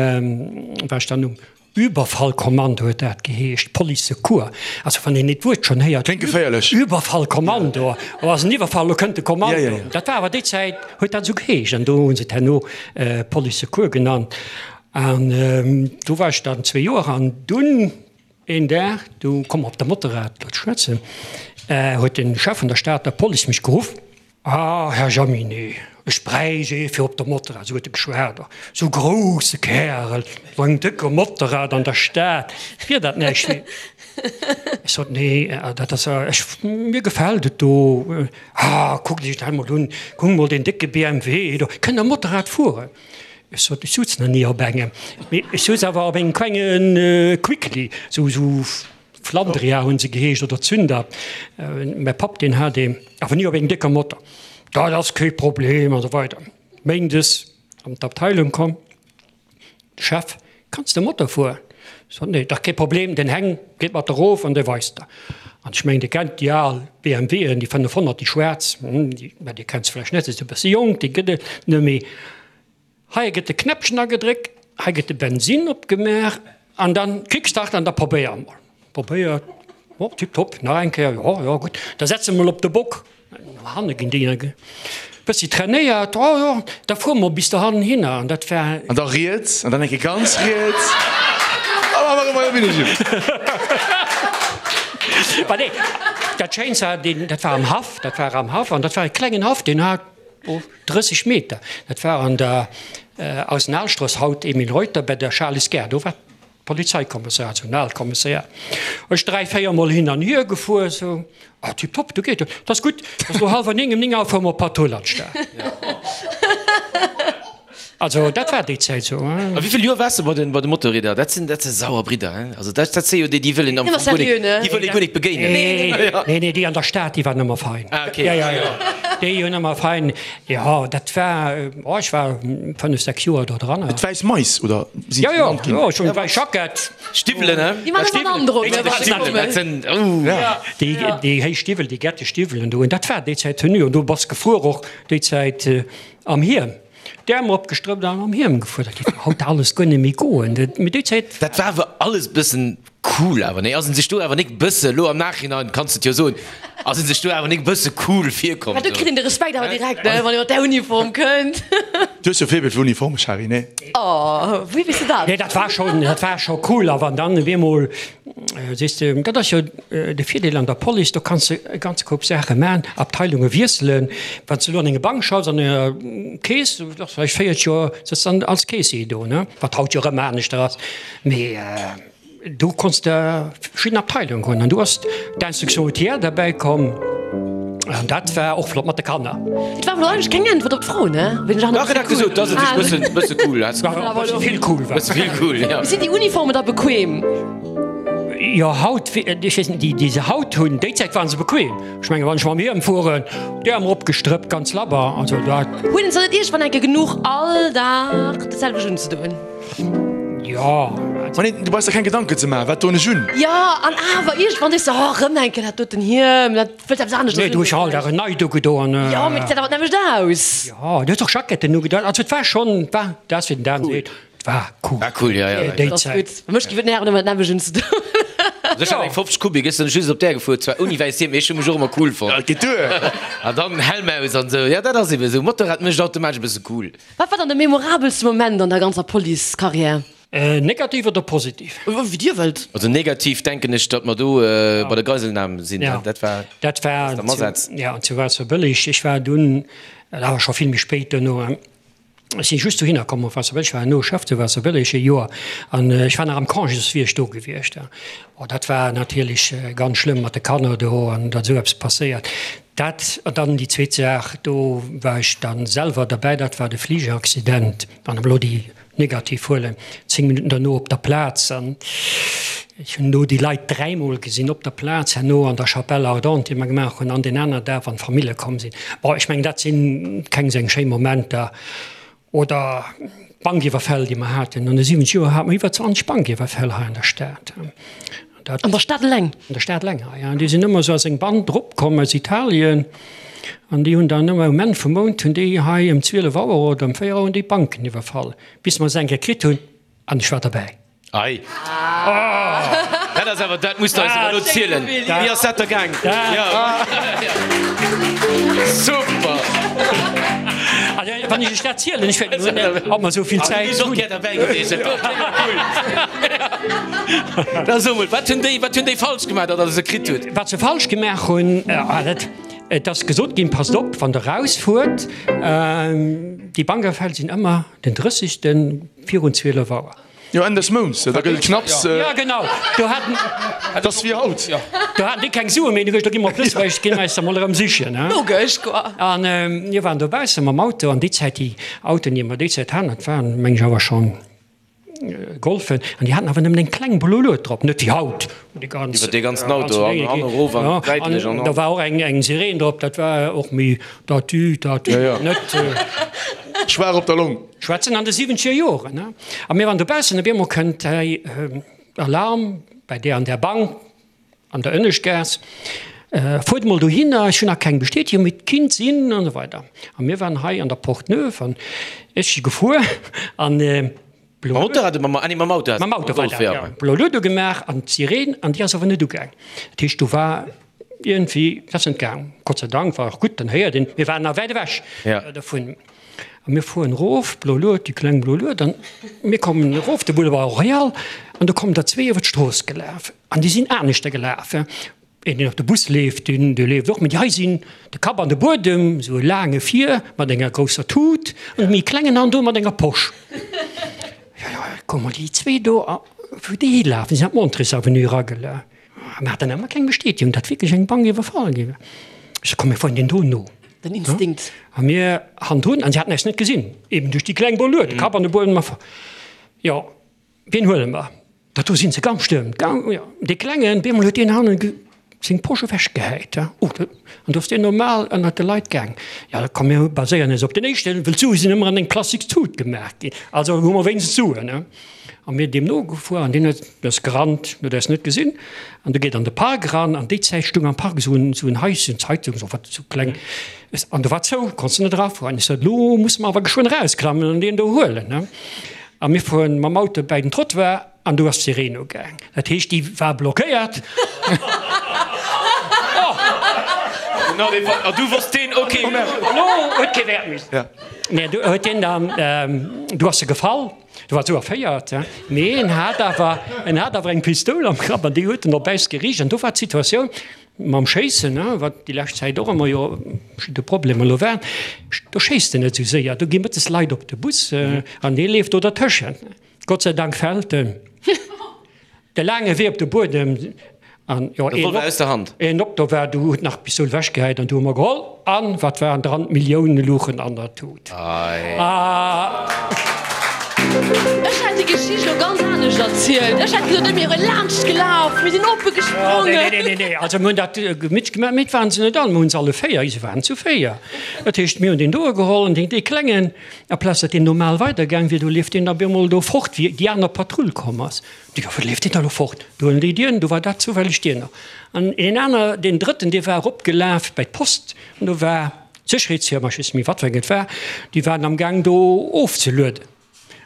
war ech dann um Überfallkommando huet dat geheescht, Police Secours. Also wann een et Wuert schonn héiert, Kléngt geféierlech. Überfallkommando, oh ass en Iwwerfall, lo kënnt de Kommando. Ja, ja, ja. Dat war awer déi Zäit, huet dat esou geheescht an do hu se et herno Police Secours genannt. An do war ech dann zwee Joer an dunn een Dag, du komm mer op de Motorrad elo ze schwätzen, huet de Chef vun der Stater Police mech geruff. Ah, Här Jaminet, ech bräicht ee fir op der Motorrad, esou huet e geschwat, esou grousse Kärel, esou engem décke Motorrad an der Stad, wier dat näischt fir. Ech sot, Nee, dat ass, ech, mir gefält et do. Ah, kuckt Iech dat emol un, kuckt emol deen décke BMW do, kënnt Der Motorrad fueren? Ech sot, Ech sutz nach ni op engem, mee ech sutz awer op engem klenge Quickly, esou, esou. Flandria hunn se geheescht oder Zünder. Mäi Papp deen hat een, awer ni op engem décker Motor. Dat ass kee Problem an esou weider. Méindes an d'Abteilung komm, de Chef, Kanns de Motor fueren? Ech sot, Nee, dach kee Problem, den Heng geet mat erof an dee weist der. An ech mengen, Dir kennt déi al BMWen, déi 500, déi schwaarz, déi, mä Dir kennt se vläicht net, se si e bësse jonk, déi gëtt et net méi. Hei gëtt de Knäppchen agedréckt, hei gëtt de Bensinn opgemaach an dann Kickstart an da probéier emol. Probéiert, oh tiptop, nach eng Kéier, jo, jo gutt, da setz emol op de Bock. No hanne ginn déi e bëssi trainéiert, oh jo, da fuere mer bis dohannen hinner an dat war. An da riets an dann eng Kéier ganz riets an dann erëm bei der Minijupe. Mä nee, dat Schéinst war, deen, dat war am Haff, dat war am Haff an dat war e klengen Haff, deen hat. 30 Meter, dat war an der Arsenalstrooss, haut Emile Reuter, bei der Charles Gare, do war d'Polizeikommissariat, esou en aalt Kommissariat. Ech dräi, véier Mol hin an hier gefuer, esou, ah tiptop, do geet et, dat ass gutt, ass elo hallwer 9, ëm 9 Auer fuere mer op Patrull an d'Stad. Also dat war déi Zäit esou. A wéi vill Joer waars de bei de bei de Motorrieder? Dat sinn dat si sauer Bridder, hein? Also dat dat si jo déi, déi wëll een am Fong guer nik, déi wëll ee guer nik begéinen. Nee, nee, nee, déi an der Stad, déi waren ëmmer fein. Ah, okay. Ja, ja, ja, déi hunn ëmmer fein, jo, dat war, oh, ech war fënnef, sechs Joer do dran. D'wäiss Mais, oder si se genannt ginn? Jo, jo, ech hunn wäiss Jackett. Stiwwelen, hein? Déi maachen ëmmer en Androck, ne, wann se kommen. Dat sinn, oh. Déi, déi héich Stiwwel, déi gette Stiwwelen do, dat war déi Zäit Tenue. An do bass gefuer och déi Zäit am Hiem. D'Äerm eropgestrëppt an am Hiem gefuer. Dat géif haut alles guer net méi goen. Mee déi Zäit. Dat war awer alles bëssen cool awer, nee? Ass en sech do awer nik bësse, lo am Nachhinein kanns de et jo soen. Ass een sech do awer nik e bësse cool virkomm? Mä do kritt een de Respekt awer direkt, ne, wann ee mat där Uniform kënnt. Du hues jo Faible fir Uniformen, Shari, nee? Oh, wéi weess de dat? Nee, dat war schonn, dat war scho cool. A wann dann op eemol, sees de, dat ass jo de Virdeel an der Police, do kanns de e ganze Koup Saache man, Abteilunge wiesselen. Wann s de elo an enger Bank schaffs, an enger Keess, du schaffs vläicht 40 Joer, sëtz dann als Keessier do, ne, wat haut jo erëm aneschter ass, mee. Do konns de verschidden Abteilungen hunn an du ass d'Instruction routière derbäi komm an dat war och flott mat de Kanner. Et war awer eigentlech keng Äntwert op d'Fro, ne? Dach, et hat gesot, dass et sech bëssen, bësse cool hat. War e bësse vill cool war. Bësse vill cool, ja. Sinn déi Uniformen da bequem? Jo, haut, ech weess net, déi, déi se haut hunn, déi Zäit waren se bequem. Ech mengen, wann ech mam Hiem fueren, d'Äerm eropgestrëppt, ganz labber, also dat. Hunn se net iergendwann eng Kéier genuch, all Dag dat selwecht unzedoen? Jo. Ma nee, du brauchs der keng Gedanken ze maachen, wat doen ech un? Jo, an awer iergendwann sees de, oh, erëm eng Kéier dat doten Hiem, dat wëllt eppes aneschters Nee, du hues jo all Dag en neit ugedoen. Jo, mee et gesäit awer d'nämmlecht aus. Jo, du hues och Jacketten ugedoen. Also et war schonn, et war, dat ass wéi den Dan seet, et war cool. War cool, jo, jo. Déi Dat ass Zäit. gutt. Mech géif et nerven, ëmmer d'nämmlecht unzedoen. Also ech hat eng 50 Kubik, ech sinn just op där gefuer, zwar ouni wäisst Hiem, mee ech hu mech och ëmmer cool fonnt. Ja, et geet duer. An dann Helm aus an esou, jo, dat ass ebe esou, Motorrad mécht automatesch e bësse cool. Wat war dann de memorabelste Moment an der ganzer Police-Carrière? Negativ oder positiv? Wéi Dir wëllt. Also negativ denken ech, datt mer do bei der Geiselnam sinn. Dat war Dat war jo zu Waasserbëlleg. Ech war dunn, dat awer scho vill méi spéit duerno, ech si just dohinner komm op Waasserbëlleg, ech war herno Chef zu Waasserbëlleg e Joer an ech war nach am Congé, soss wier ech do gewiescht. Oh dat war natierlech ganz schlëmm mat de Kanner do an datt esou eppes passéiert. Dat, an dann déi zweet Saach, do war ech da selwer derbäi, dat war de Fligeraccident, wann ech elo déi negativ huelen, 10 Minutten derno op der Plaz. An ech hunn do déi Leit dräimol gesinn op der Plaz, herno an der Chapelle ardente, déi mer gemaach hunn, an deen aner Dag, wann d'Famille komm sinn. Bon, ech mengen, dat si keng esou eng schéi Momenter. Oder d'Bankiwwerfäll, déi mer haten. An de 70 Joer hate mer iwwer 20 Bankiwwerfäll hei an der Stad. Dat, an der Stad eleng? An der Stad eleng, ja. An déi sinn ëmmer esou als eng Band eropkomm aus Italien. An déi hunn dann ëmmer um Enn vum Mount hunn déi hei ëm 12 Auer oder ëm 4 Auer hunn déi d'Banken iwwerfall, bis mer se eng Kéier kritt hunn. An ech war derbäi. Ei. Dat ass awer, dat muss de eis awer elo zielen. Wéi ass dat da gaang? Super! Also, wann ech iech dat zielen, ech wäert net, ob mer esou vill Zäit hunn. Ech wier och gär derbäi gewiescht, dat wor cool. Da so mol, wat hunn déi, wat hunn déi falsch gemaach, datt der se kritt hutt? Wat se falsch gemaach hunn, dat, et ass gesot ginn, passt op, wann der rausfuert, déi Bankerfäll sinn ëmmer den 30. Virun 12 Auer. Jo, Enn des Mounts, da gëtt et knapps. Jo, genau, do haten. Et ass wéi haut. Do haten déi keng Sue méi, du gi mer op Lëtzebuerg, gi mer eis der mol erëm sichen. Logesch, quoi. An mir waren dobausse mam Auto, an déi Zäit, déi Autoen, déi mer déi Zäit haten, dat waren, meng ech, awer schonn Golfen, an déi haten awer nëmmen eng kleng blo Lued drop, net wéi haut, wou déi ganz. Iwwer dee ganzen Auto, an an erof an säitlech an. Da war och eng eng Sireen drop, dat war och méi tatü, tatü, net. Schwaach op der Long. Schwätzen an de siwwenzeger Joren, ne? A mir waren dobaussen, op eemol kënnt hei Alarm bei där an där Bank an der Ënneschtgaass, fuert emol dohinner, ech hunn nach keng Bestätegung, mee et kinnt sinn an esou weider. A mir waren hei an der Porte Neuve an ech si gefuer an Mam Motorrad oder mam, ah nee, mam Auto. Mam Auto war dat, jo. Blo Lued ugemaach an d'Sireen an déi ass awer net ugaang. Dat heescht, do war iergendwéi, dat ass net gaang. Gott sei Dank war och gutt, dann héiert een, mir waren nach wäit ewech dovun. A mir fueren erof, blo Lued, déi kleng blo Lued, an mir kommen erof de Boulevard Royal an do kommen der zwee iwwer d'Strooss gelaf an déi sinn aneschter gelaf. Een, deen op de Bus leeft, deen dee leeft och, mee déi hei sinn de Kapp an de Buedem, esou e laange vir mat enger grousser Tut an e méi klengen an do mat enger Posch. Jo, jo, kuck mol déi zwee do, a wou déi hilafen, si sinn an d'Montrés-Avenue eragelaf. A mir haten ëmmer keng Bestätegung, datt wierklech eng Bank iwwerfall gi war. Ech so, komm, mir fueren deen do no. Den Instinkt. A mir hannendrun, an si haten eis net gesinn, eben duerch déi kleng Boluet, de Kapp an de Buedem a. Jo, Wien huele mer? Dat do sinn se ganz stëmm. Dee Klengen, bemol huet deen hannen seng Posch ewechgehäit. Oh, an do ass deen normal ënnert de Leit gaang. Jo, komm mir baséieren eis op den éischten, wëll d'Sue sinn ëmmer an eng plastiks Tut gemaach ginn. Also hu mer wéinstens Suen. A mir deem nogefuer an deen huet, ass gerannt, huet eis net gesinn. An du geet an de Park eran. An déi Zäit stung am Park esou en Haischen, Zeitung, esou wat, esou kleng. An do war zou, konns de net erafueren. Ech sot, Elo musse mer awer geschwënn erausklammen an deen do huelen. A mir fueren mam Auto bäi den Trottoir an do ass d'Sireen ugaang. Dat heescht, déi war blockéiert. A du wosst deen, ok. Elo huet kee Wäert méi. Nee, du huet deen dann, du ass e gefall, du war sou erféiert, mee en hat awer, en hat awer eng Pistoul am Grapp an déi huet en op äis geriicht. An do war d'Situatioun mam Schéissen, wat déi lescht Zäit och ëmmer jo verschidde Problemer elo waren, do schéisst en net esou séier, do gi mëttes Leit op de Bus an dee leeft do dertëschent. Gott sei Dank fält en de laange Wee op de Buedem an jo een Revolver aus der Hand. Een op do war, du huet nach d'Pistoul ewechgehäit an du hu mer geholl an wat waren dran? D'Millioune luchen an der Tut. Ech hätt déi Geschicht elo ganz anescht erzielt. Ech hätt gesot, mir wiere laanscht gelaf, mir sinn oppe gesprongen. Nee, nee, nee, nee, also mir hunn dat gemittlech gemaach, mee et waren se net all, mir hunn se alle 4, se waren zu 4. Dat heescht, mir hunn deen doe geholl an deen, dee Klengen, Aplaz datt deen normal weidergaang wier, do leeft deen da bemol do fort, wéi déi aner Patrull komm ass. Déi jo, wou leeft deen da lo fort? Do huelen déi dien, do war dat zoufälleg dien. An een aner, deen drëtten, dee war eropgelaf bei d'Post an do war d'Sécherheetsfirma, ech weess net méi wat fir eng et war, déi waren am Gaang do ofzelueden.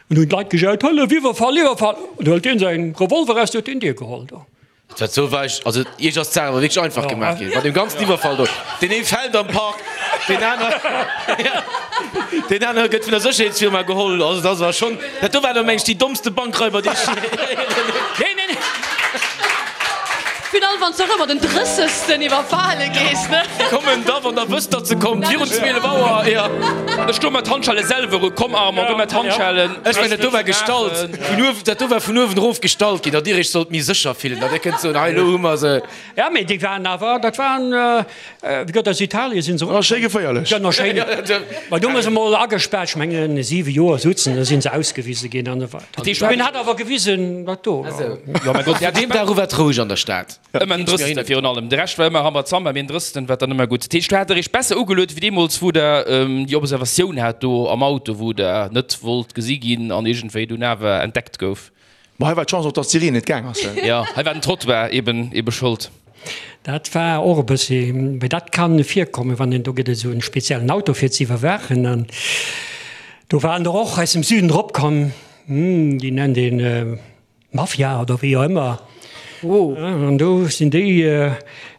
An hunn d'Leit gejaut, Hëllef, Iwwerfall, Iwwerfall! An du hëlt deen säin Revolver eraus, du huet deen Dier geholl do. Dat sou war ech, also iech ass d'Saach awer wierklech einfach gemaach ginn, mat deem ganzen Iwwerfall do. Deen ee fält am Park, deen aner, deen aner gëtt vun der Sécherheetsfirma geholl. Also dat war schonn, dat do war da meng ech déi dommste Bankraiber déi ech Nee, nee, nee. Final wann s de och ëmmer den drëssegsten iwwerfale gees, ne? Kommen da wann der wësst datt se kommt, virun 12 Auer, jo. Ech do mat Handschelle selwer u, komm Armand, do mat Handschellen. Ech mengen dat do war gestallt vun uewen, dat do war vun uewen erof gestallt ginn, datt dir iech sollt méi sécher fillen, datt dir kënnt soen, hei elo hu mer se. Ja, mee déi waren awer, dat waren, wéi gëtt aus Italien sinn se erop. Schéi geféierlech. Ja, schéin. Mä do hu mer se emol agespaart, ech mengen 7 Joer souzen, da sinn se ausgewise ginn an esou weider. Mee en hat awer gewisen, wat do war. Jo, mäi Gott, deem Dag u war et roueg an der Stad. Ëmmer den Drëssten virun allem. De Rescht war ëmmer Rambazamba, mee den Drëssten war dann ëmmer gutt. Dat heescht, do hat der iech besser ugeluet wéi deemools, wou der déi Observatioun hat do am Auto, wou der net wollt gesi ginn an iergendwéi dunn awer entdeckt gouf. Ma hei war d'Chance och, dass d'Sireen net gaang ass. Jo, hei war den Trottoir eben ebe Schold. Dat war och e bëssi, mee dat kann virkommen, wann een, do gëtt et esou e speziellen Auto fir ze iwwerwaachen an do waren der och aus dem Süden drop komm, déi nennt een Mafia oder wéi och ëmmer. An do sinn déi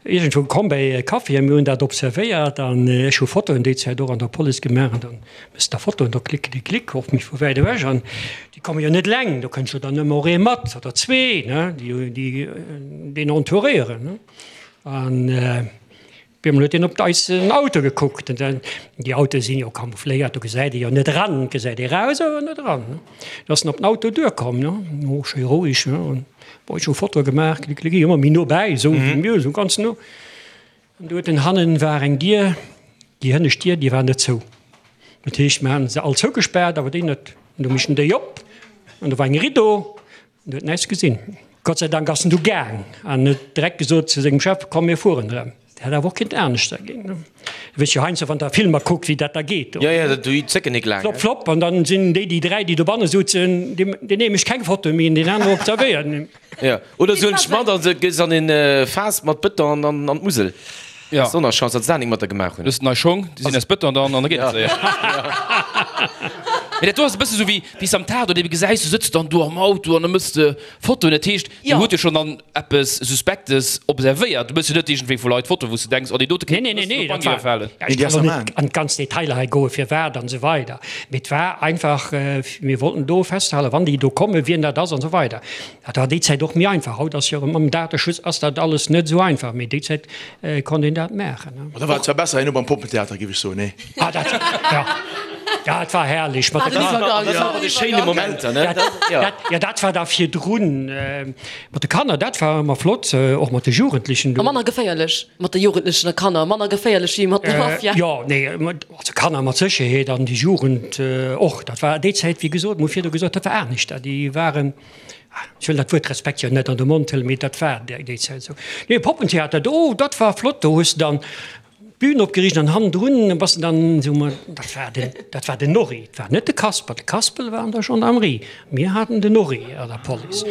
iergendwou komm bäi e Café a mir hunn dat observéiert an ech hu Fotoen déi Zäit och an der Police gemaach an dann mëss der Fotoen, do klick klick klick, och méi vu wäit ewech an déi komme jo net eleng, do kënnt jo dann ëmmer och ee mat oder zwee, ne, déi déi deen entouréieren, ne. An Op eemol huet een op eisen Auto gekuckt. An déi Autoe sinn jo camoufléiert, do gesäit ee jo net eran. Et gesäit ee raus, awer net eran. Du ass en op den Auto duerkomm, ne, oh, schéi roueg, ne. An bon, ech hu Fotoe gemaach, klick, klick, ëmmer méi no bäi, esou wéi mir, esou ganz no. An du huet en hannen war eng Dier, déi hënnescht Dier, déi war net zou. Dat heescht, mir haten se all zougespaart, awer déi net. An du mécht en déi op an do war eng Rideau. En huet näischt gesinn. Gott sei Dank ass en du gaang an huet direkt gesot zu sengem Chef, Komm, mir fueren erëm. Dat hätt awer och kinnt aneschter ginn. Du weess jo heiansdo, wann der Filmer kuckt, wéi dat da geet. Jo, jo, déi zécken nik laang. Flopp, flopp, an dann sinn déi, déi dräi, déi dobanne sutzen, deen ee mécht keng Foto méi an deen anere observéiert. Jo, oder se huelen dech mat a se gees an een Faass mat Bëton an an d'Musel. Ja. Sonnerchance, datt se dat nik mat der gemaach hunn. Du hues nei Schong, déi sinn aus Bëton dann an da geet et séier. Mee dat do ass e bësse sou wéi wéi s de am Tatort ebe gesäis, du sëtz dann do am Auto an da mëss de Fotoen. Dat heescht, dir hutt jo schonn dann eppes Suspektes observéiert. Du mëss jo net iergendwéi vu Leit Fotoen, wou s de denks, oh déi dote kéint e bëssen op Nee, d'Bank iwwerfalen. nee, nee, dat war, ech kann elo net an d'ganz Detailer hei goen, firwat an esou weider, mee et war einfach, mir wollten do festhalen, wann déi do kommen, wien dat ass an esou weider. Dat war déi Zäit och méi einfach. Haut ass jo erëm mam Dateschutz ass dat alles net esou einfach, mee déi Zäit konnt een dat maachen. Ma da war et zwar besser herno beim Poppentheater, géif ech soen, nee? Ah, dat, ja, dat war herrlech mat de Kanner. Dat waren déi schéine Momenter, ne? Dat, ja, dat war da virdrun mat de Kanner, dat war ëmmer flott, och mat de Jugendlechen do. A manner geféierlech mat de Jugendlechen a Kanner, manner geféierlech wéi mat der Mafia. Jo, nee, also Kanner mat Sécherheet an déi Jugend och. Dat war déi Zäit, wéi gesot, mir hu virdu gesot, dat war aneschter. Déi waren. Ech wëll dat Wuert Respekt jo net an de Mond huelen, mee dat war déi Zäit esou. Nee, Poppentheater, do, dat war flott, do hues de dann d'Bün opgeriicht an hannendrun bass de dann esou mat, dat war den, dat war den Norri, et war net de Kasper, de Kaspel war an der Gendarmerie, mir haten den Norri an der Police.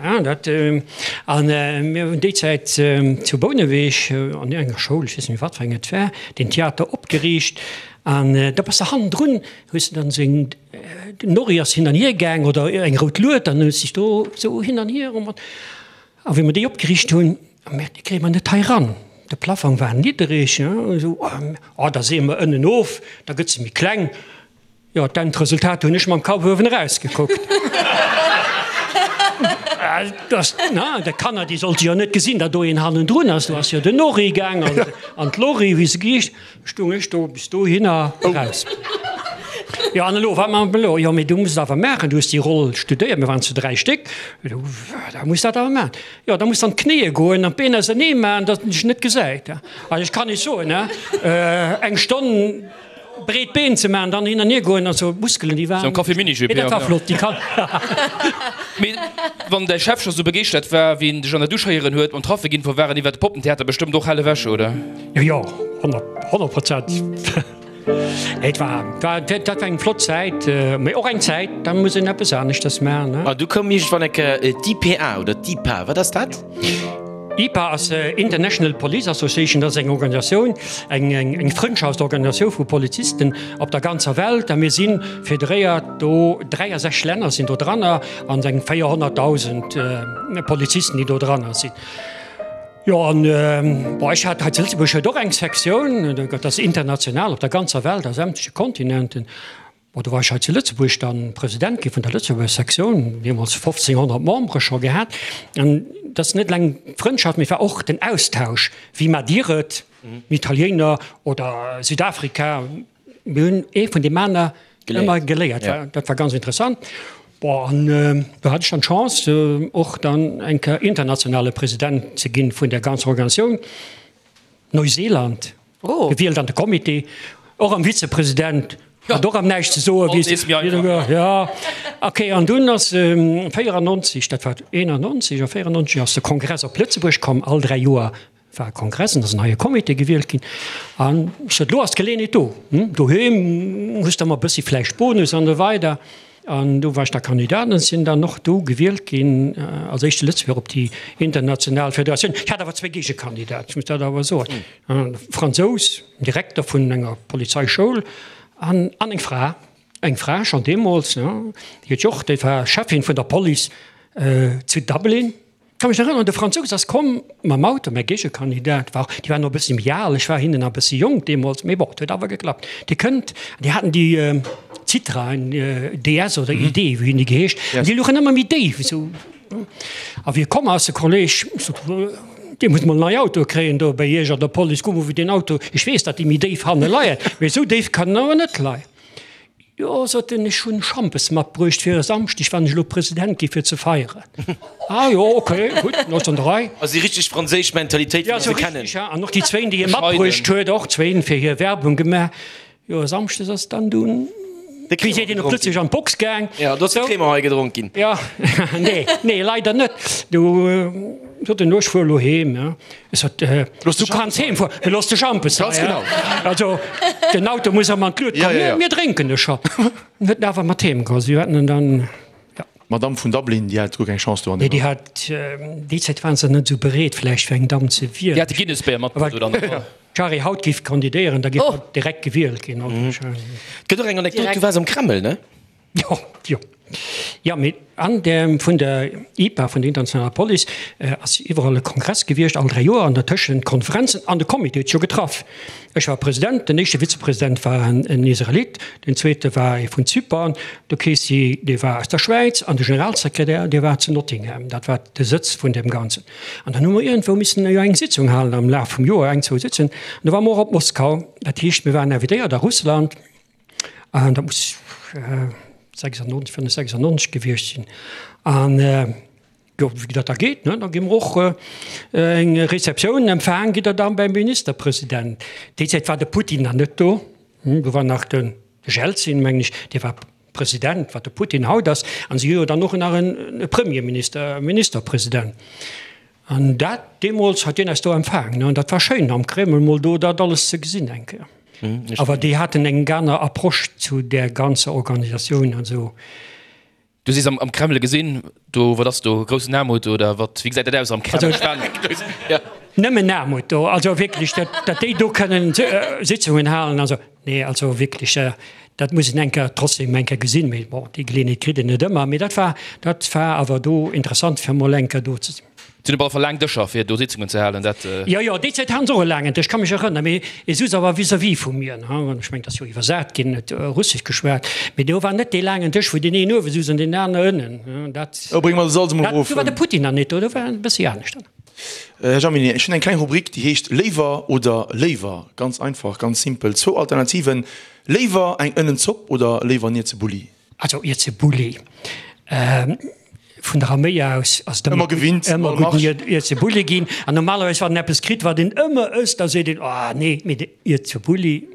Ja, dat, an mir hunn déi Zäit zu Bouneweg an enger Schoul, ech weess net méi wat fir eng et war, den Theater opgeriicht an da bass de hannendrun, hues de dann esou eng, Den Norri ass hin an hier gaang, oder eng rout Lued, an huet sech do esou hin an hier. A wéi mer déi opgeriicht hunn, hu mer, déi kréie mer net hei ran. De Plafong war niddereg, esou, oh, da seeë mer ënnen of, da gëtt se méi kleng. Jo, d'Endresultat hunn ech mam Kapp uewen eraus gekuckt. Déi Kanner, déi sollte jo net gesinn, datt do een hannendrun ass. Do ass jo den Nori gaang an d'Lori, wéi se geheescht, stung ech do bis dohinner eraus. Jo, an elo, wat maache mer elo? Jo, mee du muss et awer maachen, du hues déi Roll studéiert, mir waren zu 3 Stéck, da muss dat awer maachen. Jo, da muss an d'Knéie goen an d'Been ausernee maachen, datt en dech net gesäit. Also ech kann Iech soen, eng Stonn breet Been ze maachen, dann hin an hier goen, also d'Muskelen déi waren. Sou Café Mini-Jupe, jo. Mee dat war flott, déi kann. Mee wann däi Chef scho sou begeeschtert war, wéi en dech an der Dusch héieren huet mam Traffe ginn, wou waren iwwer de Poppentheater bestëmmt och hell ewech, oder? Jo, jo, 100 Prozent. Et war, war, dat war eng flott Zäit, mee och eng Zäit, da muss een eppes aneschters maachen, ne? A du koum iergendwann eng Kéier d'IPA oder d'IPA, wat ass dat? IPA ass International Police Association, dat ass eng Organisatioun, eng, eng, eng Frëndschaftsorganisatioun vu Polizisten op der ganzer Welt. A mir si federéiert do, 63 Länner sinn do dranner an eng 400.000 Polizisten, déi do dranner sinn. Jo, an bon, ech hat hei zu Lëtzebuerg huet och eng Sektioun, dat ass international op der ganzer Welt, a sämtleche Kontinenten. Bon, do war ech hei zu Lëtzebuerg dann President gi vun der Lëtzebuerger Sektioun, deemools 1.500 Membere scho gehat. An dat ass net eleng d'Frëndschaft, mee et war och den Austausch, wéi maacht Dir et, Italiener oder Südafrika, Mir hunn ee vun deem aner ëmmer geléiert. Dat war ganz interessant. Bon, an do hat ech dann d'Chance, och dann eng Kéier internationale President ze ginn vun där ganzer Organisatioun. Neuseeland gewielt an de Comité, och am Vizepresident, hat och am näischt ze soen. Jo, okay. An dunn ass 94, dat war 91 oder 94, ass de Kongress op Lëtzebuerg komm, all 3 Joer war e Kongress an ass en neie Comité gewielt ginn. An ech sot, elo ass d'Geleeënheet do, doheem hues de ëmmer e bëssi vläicht Bonus an esou weider. An do war ech da Kandidat an sinn dann och do gewielt ginn als éischte Lëtzebuerger op déi international Federatioun. Ech hat awer zwéi Géigekandidaten, ech muss dat awer soen, e Fransous, Direkter vun enger Polizeischoul an an eng Fra, eng Fra schonn deemools, déi huet jo och, déi war Cheffin vun der Police zu Dublin. Ka mech erënneren, de Fransous ass komm mam Auto, mäi Géigekandidat war, déi waren och e bëssi méi al, ech war hinnen nach e bëssi jonk deemools, mee bon, et huet awer geklappt. Dee kënnt, déi haten déi Citroën DS oder ID, wéi hunn déi geheescht, an déi louchen ëmmer méi déif esou. A wéi e komm ass, de Kolleg, sot, Dir musst mol en neie Auto kréien do bei Iech an der Police, kuck mol wéi deen Auto, ech weess, datt déi méi déif hanne leien, mee esou déif kann en awer net leien. Jo, sot en, ech hunn Schampes matbruecht fir e Samschdeg, wann ech elo President gi fir ze feieren. Ah jo, ok, gutt, dann ass an der Rei. Also déi richteg franséisch Mentalitéit, wéi mer se kennen. Ja, an och déi zwéin, déi hie matbruecht huet, och zwéin fir hir Werbung gemaach. Jo, e Samschdes ass dann dunn De wéi seet een op Lëtzebuergesch an d'Box gaang. Ja, do ass de Crémant hei gedronk ginn. Ja, nee, nee, leider net. Du sot en, elo ech fuer elo heem, ja. Ech sot, du kanns heem fueren, mee looss de Schampes hei. Ganz genau. Also, den Auto muss erëm an d'Lued kommen. Ja, ja, ja. Mir drénken e scho. En huet en awer mat heem geholl. Si haten en dann, ja. D'Madame vun Dublin, déi hat guer keng Chance do an Nee, déi hat, déi Zäit waren se net esou bereet vläicht fir eng Damm ze wielen. Déi hat de Guinness-Béier matbruecht, oder? Wa d'Shari haut géif kandidéieren, da géif hatt direkt gewielt ginn, wahrscheinlech. Et gëtt och eng Anekdot, du waars am Kreml, ne? Jo, jo. Jo, mee an der, vun der IPA, vun der internationaler Police, ass iwwerall e Kongress gewiescht, all 3 Joer, an dertëschent Konferenzen, an de Comité huet sech jo getraff. Ech war President, den éischte Vizepresident war en Israelit, den zweete war ee vun Zypern, de Casey, dee war aus der Schwäiz, an de Generalsekretär, dee war zu Nottingham. Dat war de Sëtz vun deem Ganzen. An dann hu mer iergendwou missen jo eng Sitzung halen am Laf vum Joer, eng, zwou Sitzungen. An do ware mer och op Moskau. Dat heescht, mir waren invitéiert a Russland. An dat muss 96, 95, 96 gewiescht sinn. An jo, wéi dat da geet, ne, da gi mer och eng Receptioun empfaang, gitt Der dann beim Ministerpresident. Déi Zäit war de Putin nach net do, do war nach de Jelzin, mengen ech, dee war President, wat de Putin haut ass. An si hu jo dann och nach e Premierminister, e Ministerpresident. An dat deemools hat deen eis do empfaangen an dat war schéin am Kreml mol do dat alles ze gesinn eng Kéier. Awer déi haten eng aner Approche zu där ganzer Organisatioun an esou. Du sees am Kreml gesinn, do wat ass do, groussen Aarmut oder wat, wéi gesäit dat aus am Kreml? Nëmmen Aarmut do, also wierklech, dat déi do kënnen Sitzungen halen, also nee, also wierklech, dat muss een eng Kéier trotzdem eng Kéier gesinn, mee bon, déi Geleeënheet kritt een net ëmmer. Mee dat war, dat war awer do interessant fir mol eng Kéier do ze sinn. Si hunn op alle Fall laang Dëscher, fir do Sitzungen ze halen. Dat. Jo, jo, déi Zäit haten se och e laangen Dësch, ka mech erënneren. Mee e souz awer vis-à-vis vu mir, ne. An ech mengen, et ass jo iwwersat ginn, huet Russesch geschwat. Mee do war net dee laangen Dësch, wou deen een uewe souz an deen aner ënnen, ne. Dat. Oh, bréng mer de Salz emol Dat, erof. do war de Putin nach net do, do war et e bëssi anescht. Här Jaminet, ech hunn eng kleng Rubrik, déi heescht Léiwer oder léiwer. Ganz einfach, ganz simpel. Zwou Alternativen, Léiwer eng Ënnenzopp oder léiwer en Ierzebulli? Also Ierzebulli. Vun der Arméi aus ass et ëmmer gewinnt, ëmmer gutt Ierzebulli ginn. An normalerweis, wann een eppes kritt, wat een ëmmer ësst, da seet een, Oh nee, mee de Ierzebulli.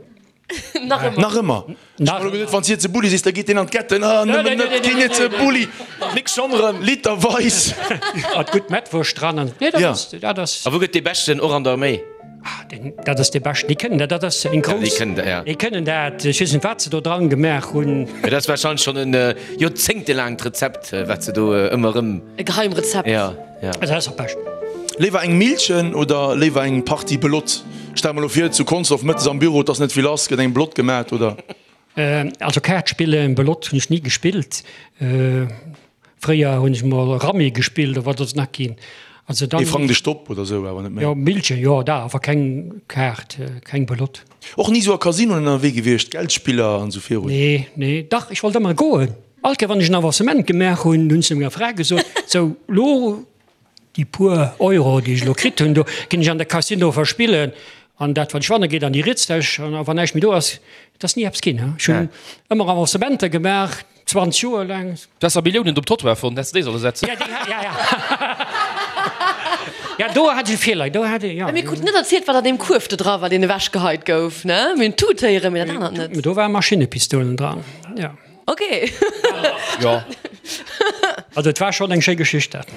Nach ëmmer. Nach ëmmer. Ech hu geduet, wann s Ierzebulli sees, da geet deen an d'Ketten. Ah, nëmmen net keen Ierzebulli. Nix schonn erëm, literweis. Mat gutt Mettwurscht dran an, nee, dat ass, dat ass. A wou gëtt dee beschten, och an der Arméi? Ah, deen, dat ass dee beschten. Déi kënnen dat, dat ass eng grouss. Déi kënnen dat, ja. Déi kënnen dat. Ech weess net, wat se do dran gemaach hunn. Mee dat ass warscheinlech schonn en joerzéngtelaangt Rezept, wat se do ëmmer erëm. E Geheimrezept. Ja, ja. Also dat ass am beschten. Léiwer eng Millchen oder léiwer eng Partie Belotte? Stell mer elo vir, zu Consdorf mëttes am Büro, et ass net vill lass, gëtt eng Belotte gemat, oder? Also Kaart spillen, Belotte hunn ech ni gespillt. Fréier hunn ech mol Rammy gespillt oder wat ass nach ginn. Also dann. Ee Frang de Stopp oder sou, awer net méi. Jo, Millchen, jo, da, awer keng Kaart, keng Belotte. Och ni sou a Casinoen ënnerwee gewiescht, Geldspiller an sou virun? Nee, nee, dach, ech wollt ëmmer goen. All Kéier wann ech en Avancement gemaach hunn, hunn ech zu menger Fra gesot, sou, lo Déi puer Euro, déi ech elo kritt hunn, do ginn ech an de Casino verspillen an dat, wat ech wanne geet an déi riets Täsch an wann näischt méi do ass, et ass ni eppes ginn. Ech hunn ëmmer Avancementer gemaach, 20 Joer laang. Du has der Milliounen op Trottoir fonnt, häss de déi solle setzen. Ja, déi, ja, ja. Ja, do hat ech e Feeler, do hat ech, ja. Mir kruten net erzielt, wat an deem Kuerf do dra war, deen ewechgeheit gouf, ne? Mir hunn d'Tut héieren, mee dat anert net. Do ware Maschinnepistolen dran, ja. Ok. Jo. Also et war schonn eng schéi Geschicht dat.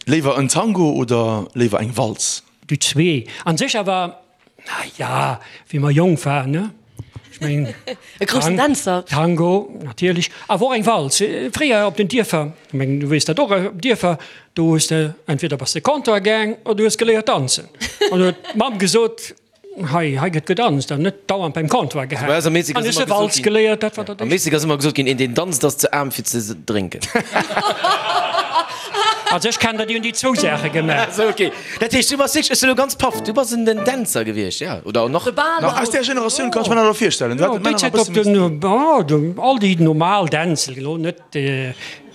Léiwer en Tango oder léiwer eng Walz? Déi zwee an sech, awer na ja, wéi mer jonk waren, ne? Ech mengen. E groussen Dänzer. Tango natierlech, awer och eng Walz. Fréier op den Dierfer, ech mengen du weess dat och, op Dierfer, do hues de entweder bass de Comptoir gaang oder du hues geléiert danzen. An huet d'Mamm gesot, Hei, hei gëtt gedanzt an net dauernd beim Comptoir gehaangen. Bei eis am Meezeg An ass ech ëmmer hu Walz gesot ginn, geléiert, dat war dat am Éischt. Meezeg ass ëmmer gesot ginn, een deen danzt ass ze aarm fir ze drénken. Also ech kennen der, déi hunn déi zwou Saache gemaach. Sou, ok. Dat heescht, du bass wierklech, ech sinn elo ganz paff, du bass en den Dänzer gewiescht, ja, oder nach? De Bal. Aus där Generatioun kann ech mer dat elo virstellen. Du Jo, hat déi d'Männer nach Zäit e op bësse den, oh, all déi normal Dänz, elo net,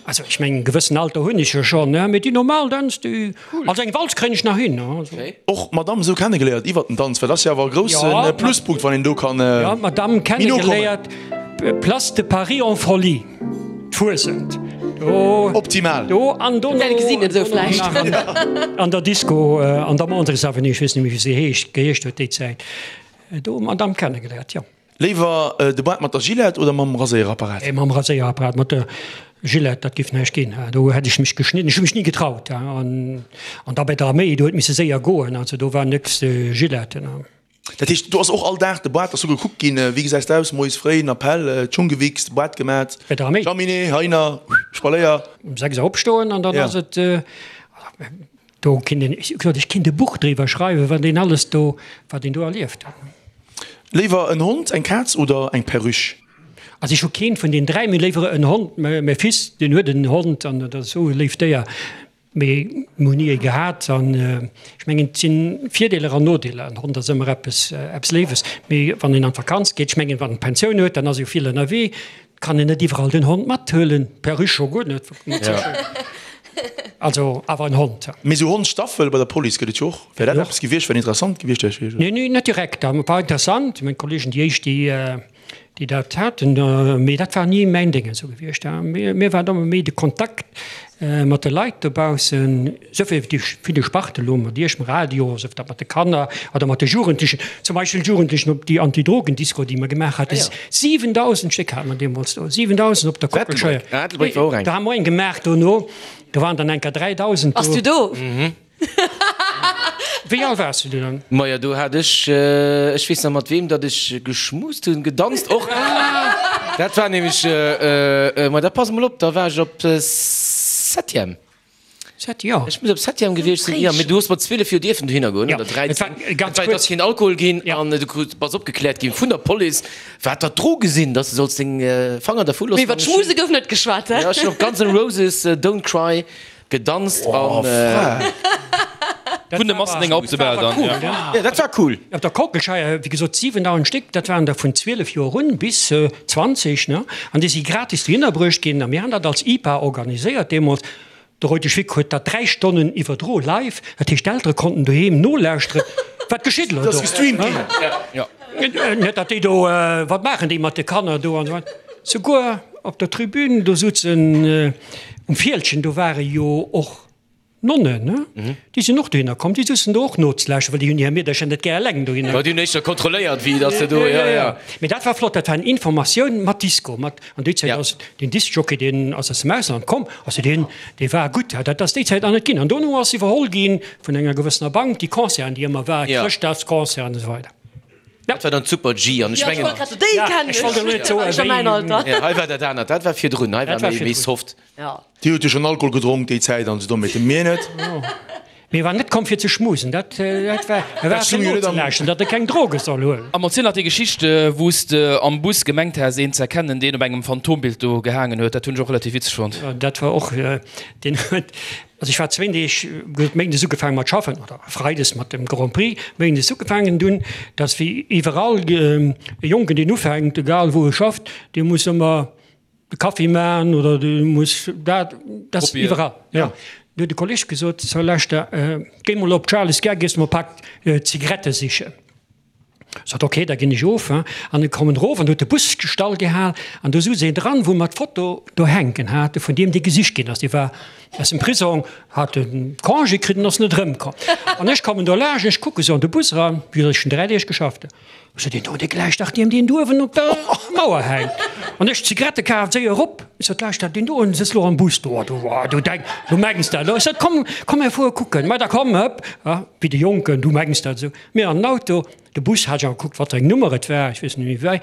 Also ech mengen, e gewëssen Alter hunn ech jo schonn, ne, mee déi normal Dänz, déi, also eng Walz kréien ech nach hin, ne, also. Och d'Madame esou kennegeléiert iwwert den Danz, well dat ass jo awer e grousse Pluspunkt, wann een do kann Jo, d'Madame méi no kommen. kennegeléiert, Place de Paris en folie, d'Fuesent, do. Optimal. Do an dono. Wäert gesinn esou vläicht. Nach an der Disco an der Mondrich Avenue, ech weess net méi wéi se heescht, geheescht huet déi Zäit, do d'Madame kennegeléiert, jo. Léiwer de Bart mat der Gillette oder mam Raséierapparat? Mam Raséierapparat, mat der Gillette, dat giff näischt ginn. Do hätt ech mech geschnidden, ech hu mech ni getraut. An da bei der Arméi, do huet misse séier goen, also do war nëx Gillette. Dat heescht, do ass och all Dag de Bart ass do gekuckt ginn, wéi gesäis de aus, moies fréi en Appell, d'Schung gewichst, Bart gemat, Bei der Arméi? Jaminet, Heiner, Spaléier. Um 6 Auer opstoen an dann ass et, do kinnt een, ech gesot, ech kinnt e Buch driwwer schreiwen, wat een alles do, wat een do erlieft huet. Léiwer en Hond, eng Kaz oder eng Perruche? Also ech hu keent vun den 3, mee léiwer en Hond. Mäi Fils deen huet en Hond an dat ass esou e léift Déier, mee mir hunn ni ee gehat an ech mengen et sinn Virdeeler an Nodeeler. En Hond ass ëmmer eppes eppes Léiwes, mee wann een an d'Vakanz geet, ech mengen wann en Pensioun huet, dann ass e jo vill ënnerwee, kann een net iwwerall den Hond mathuelen, Perruche scho guer net. Also awer en Hond. Mee sou Hondsstaffel bei der Police gëtt et jo och. Wär dat eppes gewiescht, wat interessant gewiescht wär? Nee, nee, net direkt. Dat war interessant, meng Kollegen, déi éischt, déi, déi dat haten, mee dat war ni mäin Déngen esou gewiescht. Mir war et ëmmer méi de Kontakt mat de Leit dobaussen, esou wéi déi ville Sparte elo mat Iech, mam Radio, sief dat mat de Kanner oder mat de Jugendlechen, zum Beispill d'Jugendlechen op déi Antidrogendisko, déi mer gemaach haten, 7.000 Stéck hate mer deemools do, 7.000 op der Kockelscheier. Do hu mer eng gemaach dono, do waren dann enker 3.000 do. Bass du do? Wéi al waars du du dann? Majo, do hat ech, ech weess nach mat weem datt ech geschmust hunn, gedanzt och. Dat war nämlech, ma da pass mol op, da war ech op Septième. Sept, jo. Ech muss op Septième gewiescht sinn, jo, mee du hues mat 12 Joer dierfen dohinner goen, oder 13. Ganz Et ass kuerz. keen Alkohol ginn an du krut, bass opgekläert ginn vun der Police, wat dat Droge sinn, datt s de solls deng Fanger dervu Mee loossen. iwwer d'Schmuse gouf net geschwat, he? Jo, ech hunn op Guns N' Roses Don't Cry gedanzt an. Oh, frech. Vun de Massendénger op de Bal dann, ja. Ja, dat war cool. Op der Kockelscheier, wéi gesot, 7.000 Stéck, dat waren der vun 12 Joer un bis 20, ne? An déi si gratis dohinner bruecht ginn. A mir han dat als IPA organiséiert deemools. De Reutesch Vic huet dat 3 Stonnen iwwerdro live, dat heescht d'Eltere konnten doheem nolauschteren, wat geschitt elo do. Net datt déi do, wat maachen déi mat de Kanner do an esou weider. Souguer op der Tribün, do souzen um Fieldgen, do ware jo och Nonnen, ne? Déi sinn och dohinner komm, déi souzen do och nozelauschteren, well déi hunn hir Meedercher net gär eleng dohinner. Jo, déi hunn éischter kontrolléiert, wéi datt se do, jo, jo. Mee dat war flott, dat war eng Informatioun mat Disco, mat, an déi Zäit ass den Discjockey, deen ass aus dem Ausland komm, also deen, dee war gutt, dat ass déi Zäit nach net ginn. An dono ass iwwerholl gi vun enger gewëssener Bank, déi Concerten, déi ëmmer war, Chrëschtdagsconcerten an esou weider. Dat war dann d'Super-G an ech mengen. Déi kennen ech, ech a mäin Alter. Hei war dat anert, dat war virdrun, hei war méi soft. Dir hutt jo schonn Alkohol gedronk déi Zäit an esou, mee mir net. Mee e war net komm fir ze schmusen, dat war, e war fir nozelauschteren, datt e keng Droge soll huelen. An erziel nach déi Geschicht, wou s de am Bus gemengt has een ze erkennen, deen op engem Phantombild do gehaangen huet. Dat hunn ech och relativ witzeg fonnt. Dat war och, deen huet, also ech war zwéin Deeg, huet méindes ugefaangen mat schaffen, oder freides mat dem Grand Prix, méindes ugefaangen dunn, dass wéi iwwerall e Jonken deen ufänkt, egal wou e schafft, dee muss ëmmer de Kaffi maachen oder du muss dat, dat ass iwwerall. Ja. Du huet de Kolleg gesot, so lauschter, géi mol op d'Charly's Gare, gees mol e Pak Zigarette sichen. Sot, ok, da ginn ech of. An ech kommen erof an do huet de Bus stall gehal an do souz een dran, wou mer d'Foto do hänken hate vun deem, dee gesicht ginn ass. Dee war aus dem Prisong, hat e Congé kritt an ass net erëmkomm. An ech kommen do laanscht, ech kucke sou an de Bus eran, wéi gesot, ech hunn 3 Deeg geschafft. Ech sot, Deen do, dee gläicht dach deem, deen do uewen op der Mauer hänkt. An ech d'Zigarette kaf, séier erop. Ech sot, Lauschter, deen do uewen sëtzt lo am Bus do. Du, du denk, du mengs dat elo. Ech sot, Komm, komm, mir fuere kucken. Ma da komm, hëpp, wéi de Jonken, du mengs dat esou. Mir an den Auto, de Bus hat ech awer gekuckt, wat fir eng Nummer et war, ech weess net méi wéi.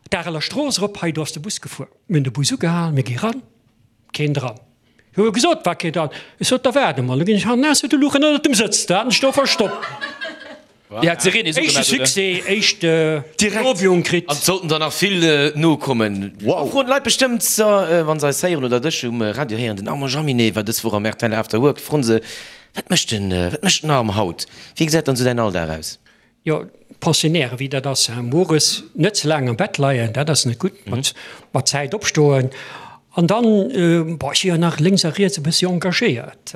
D'Areler Strooss erop, hei do ass de Bus gefuer. Mir hunn de Bus ugehal, mir gi ran, keen dran. Hu jo gesot, war kee dran. Ech sot, da waarde mol, da ginn ech hannen aus, de luch ënnert dem Sëtz, da hat en sech do verstoppt. Déi hat d'Sirene esou Éischte gemaach, oder? Succès, éischte Lobiung kritt. An et sollten der nach vill nokommen. Wow! Froen d'Leit bestëmmt, wa se eis héieren oder dech um Radio héieren, den Armand Jaminet war dës Woch am rtl After Work, froen se, Wat mécht den, wat mécht den Arm haut? Wéi gesäit dann esou däin Alldag aus? Jo, Pensionnaire wéi dat ass, mueres net ze laang am Bett leien, dat ass net gutt, mat mat Zäit opstoen an dann, bon, ech si jo nach lénks a riets e bëssi engagéiert,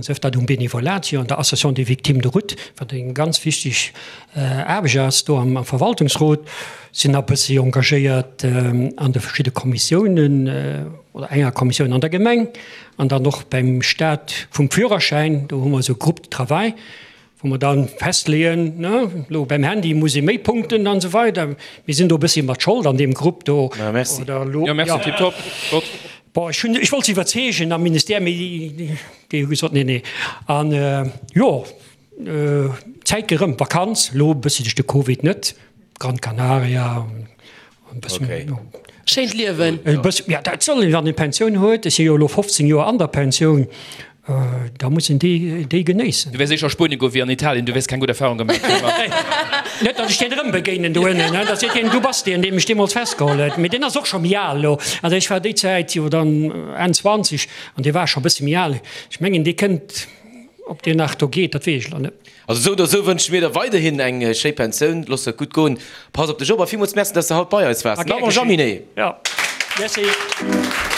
sief dat um Benevolat hier an der Association des victimes de route, wat eng ganz wichteg Aarbecht ass do am Verwaltungsrot, sinn nach e bëssi engagéiert an de verschidde Kommissiounen oder enger Kommissioun an der Gemeng an dann och beim Staat vum Führerschäin, do hu mer esou e Groupe de travail, wou mer dann festleeën, ne, elo beim Handy muss ee méi Punkten an esou weider. Mir sinn do e bëssi mat Schold an deem Grupp do. Ja, merci. Oder elo, Ja, merci, ja. tiptop, flott. Bon, ech hunn, ech wollt se iwwerzeegen am Ministère, mee déi hu gesot, nee, nee. An jo, d'Zäit geet erëm, Vakanz, elo e bëssi duerch de Covid net, Gran Canaria, Okay. Schéint Liewen. E bëssen, ja, dat soll een, wann een Pensioun huet, ech si jo elo 15 Joer an der Pensioun, da muss een déi, déi genéissen. Du wäers éischer a Spuenien goen wéi an Italien, du wäers keng gutt Erfahrung gemaach hunn. Net, datt ech deen erëm begéinen do ënnen, da seet hien, du bass deen, dee mech deemools festgeholl huet. Mee deen ass och scho méi al elo. Also ech war déi Zäit jo dann Enn 20 an dee war scho e bësse méi al. Ech mengen, dee kënnt, ob deen nach do geet, dat weess ech elo net. Also esou oder esou wënsche mir der weiderhin eng schéi Pensioun. Looss et gutt goen, pass op dech op a villmools Merci, dass de haut bei eis waars. Gär Armand geschéngt. Jaminet. Jo, merci.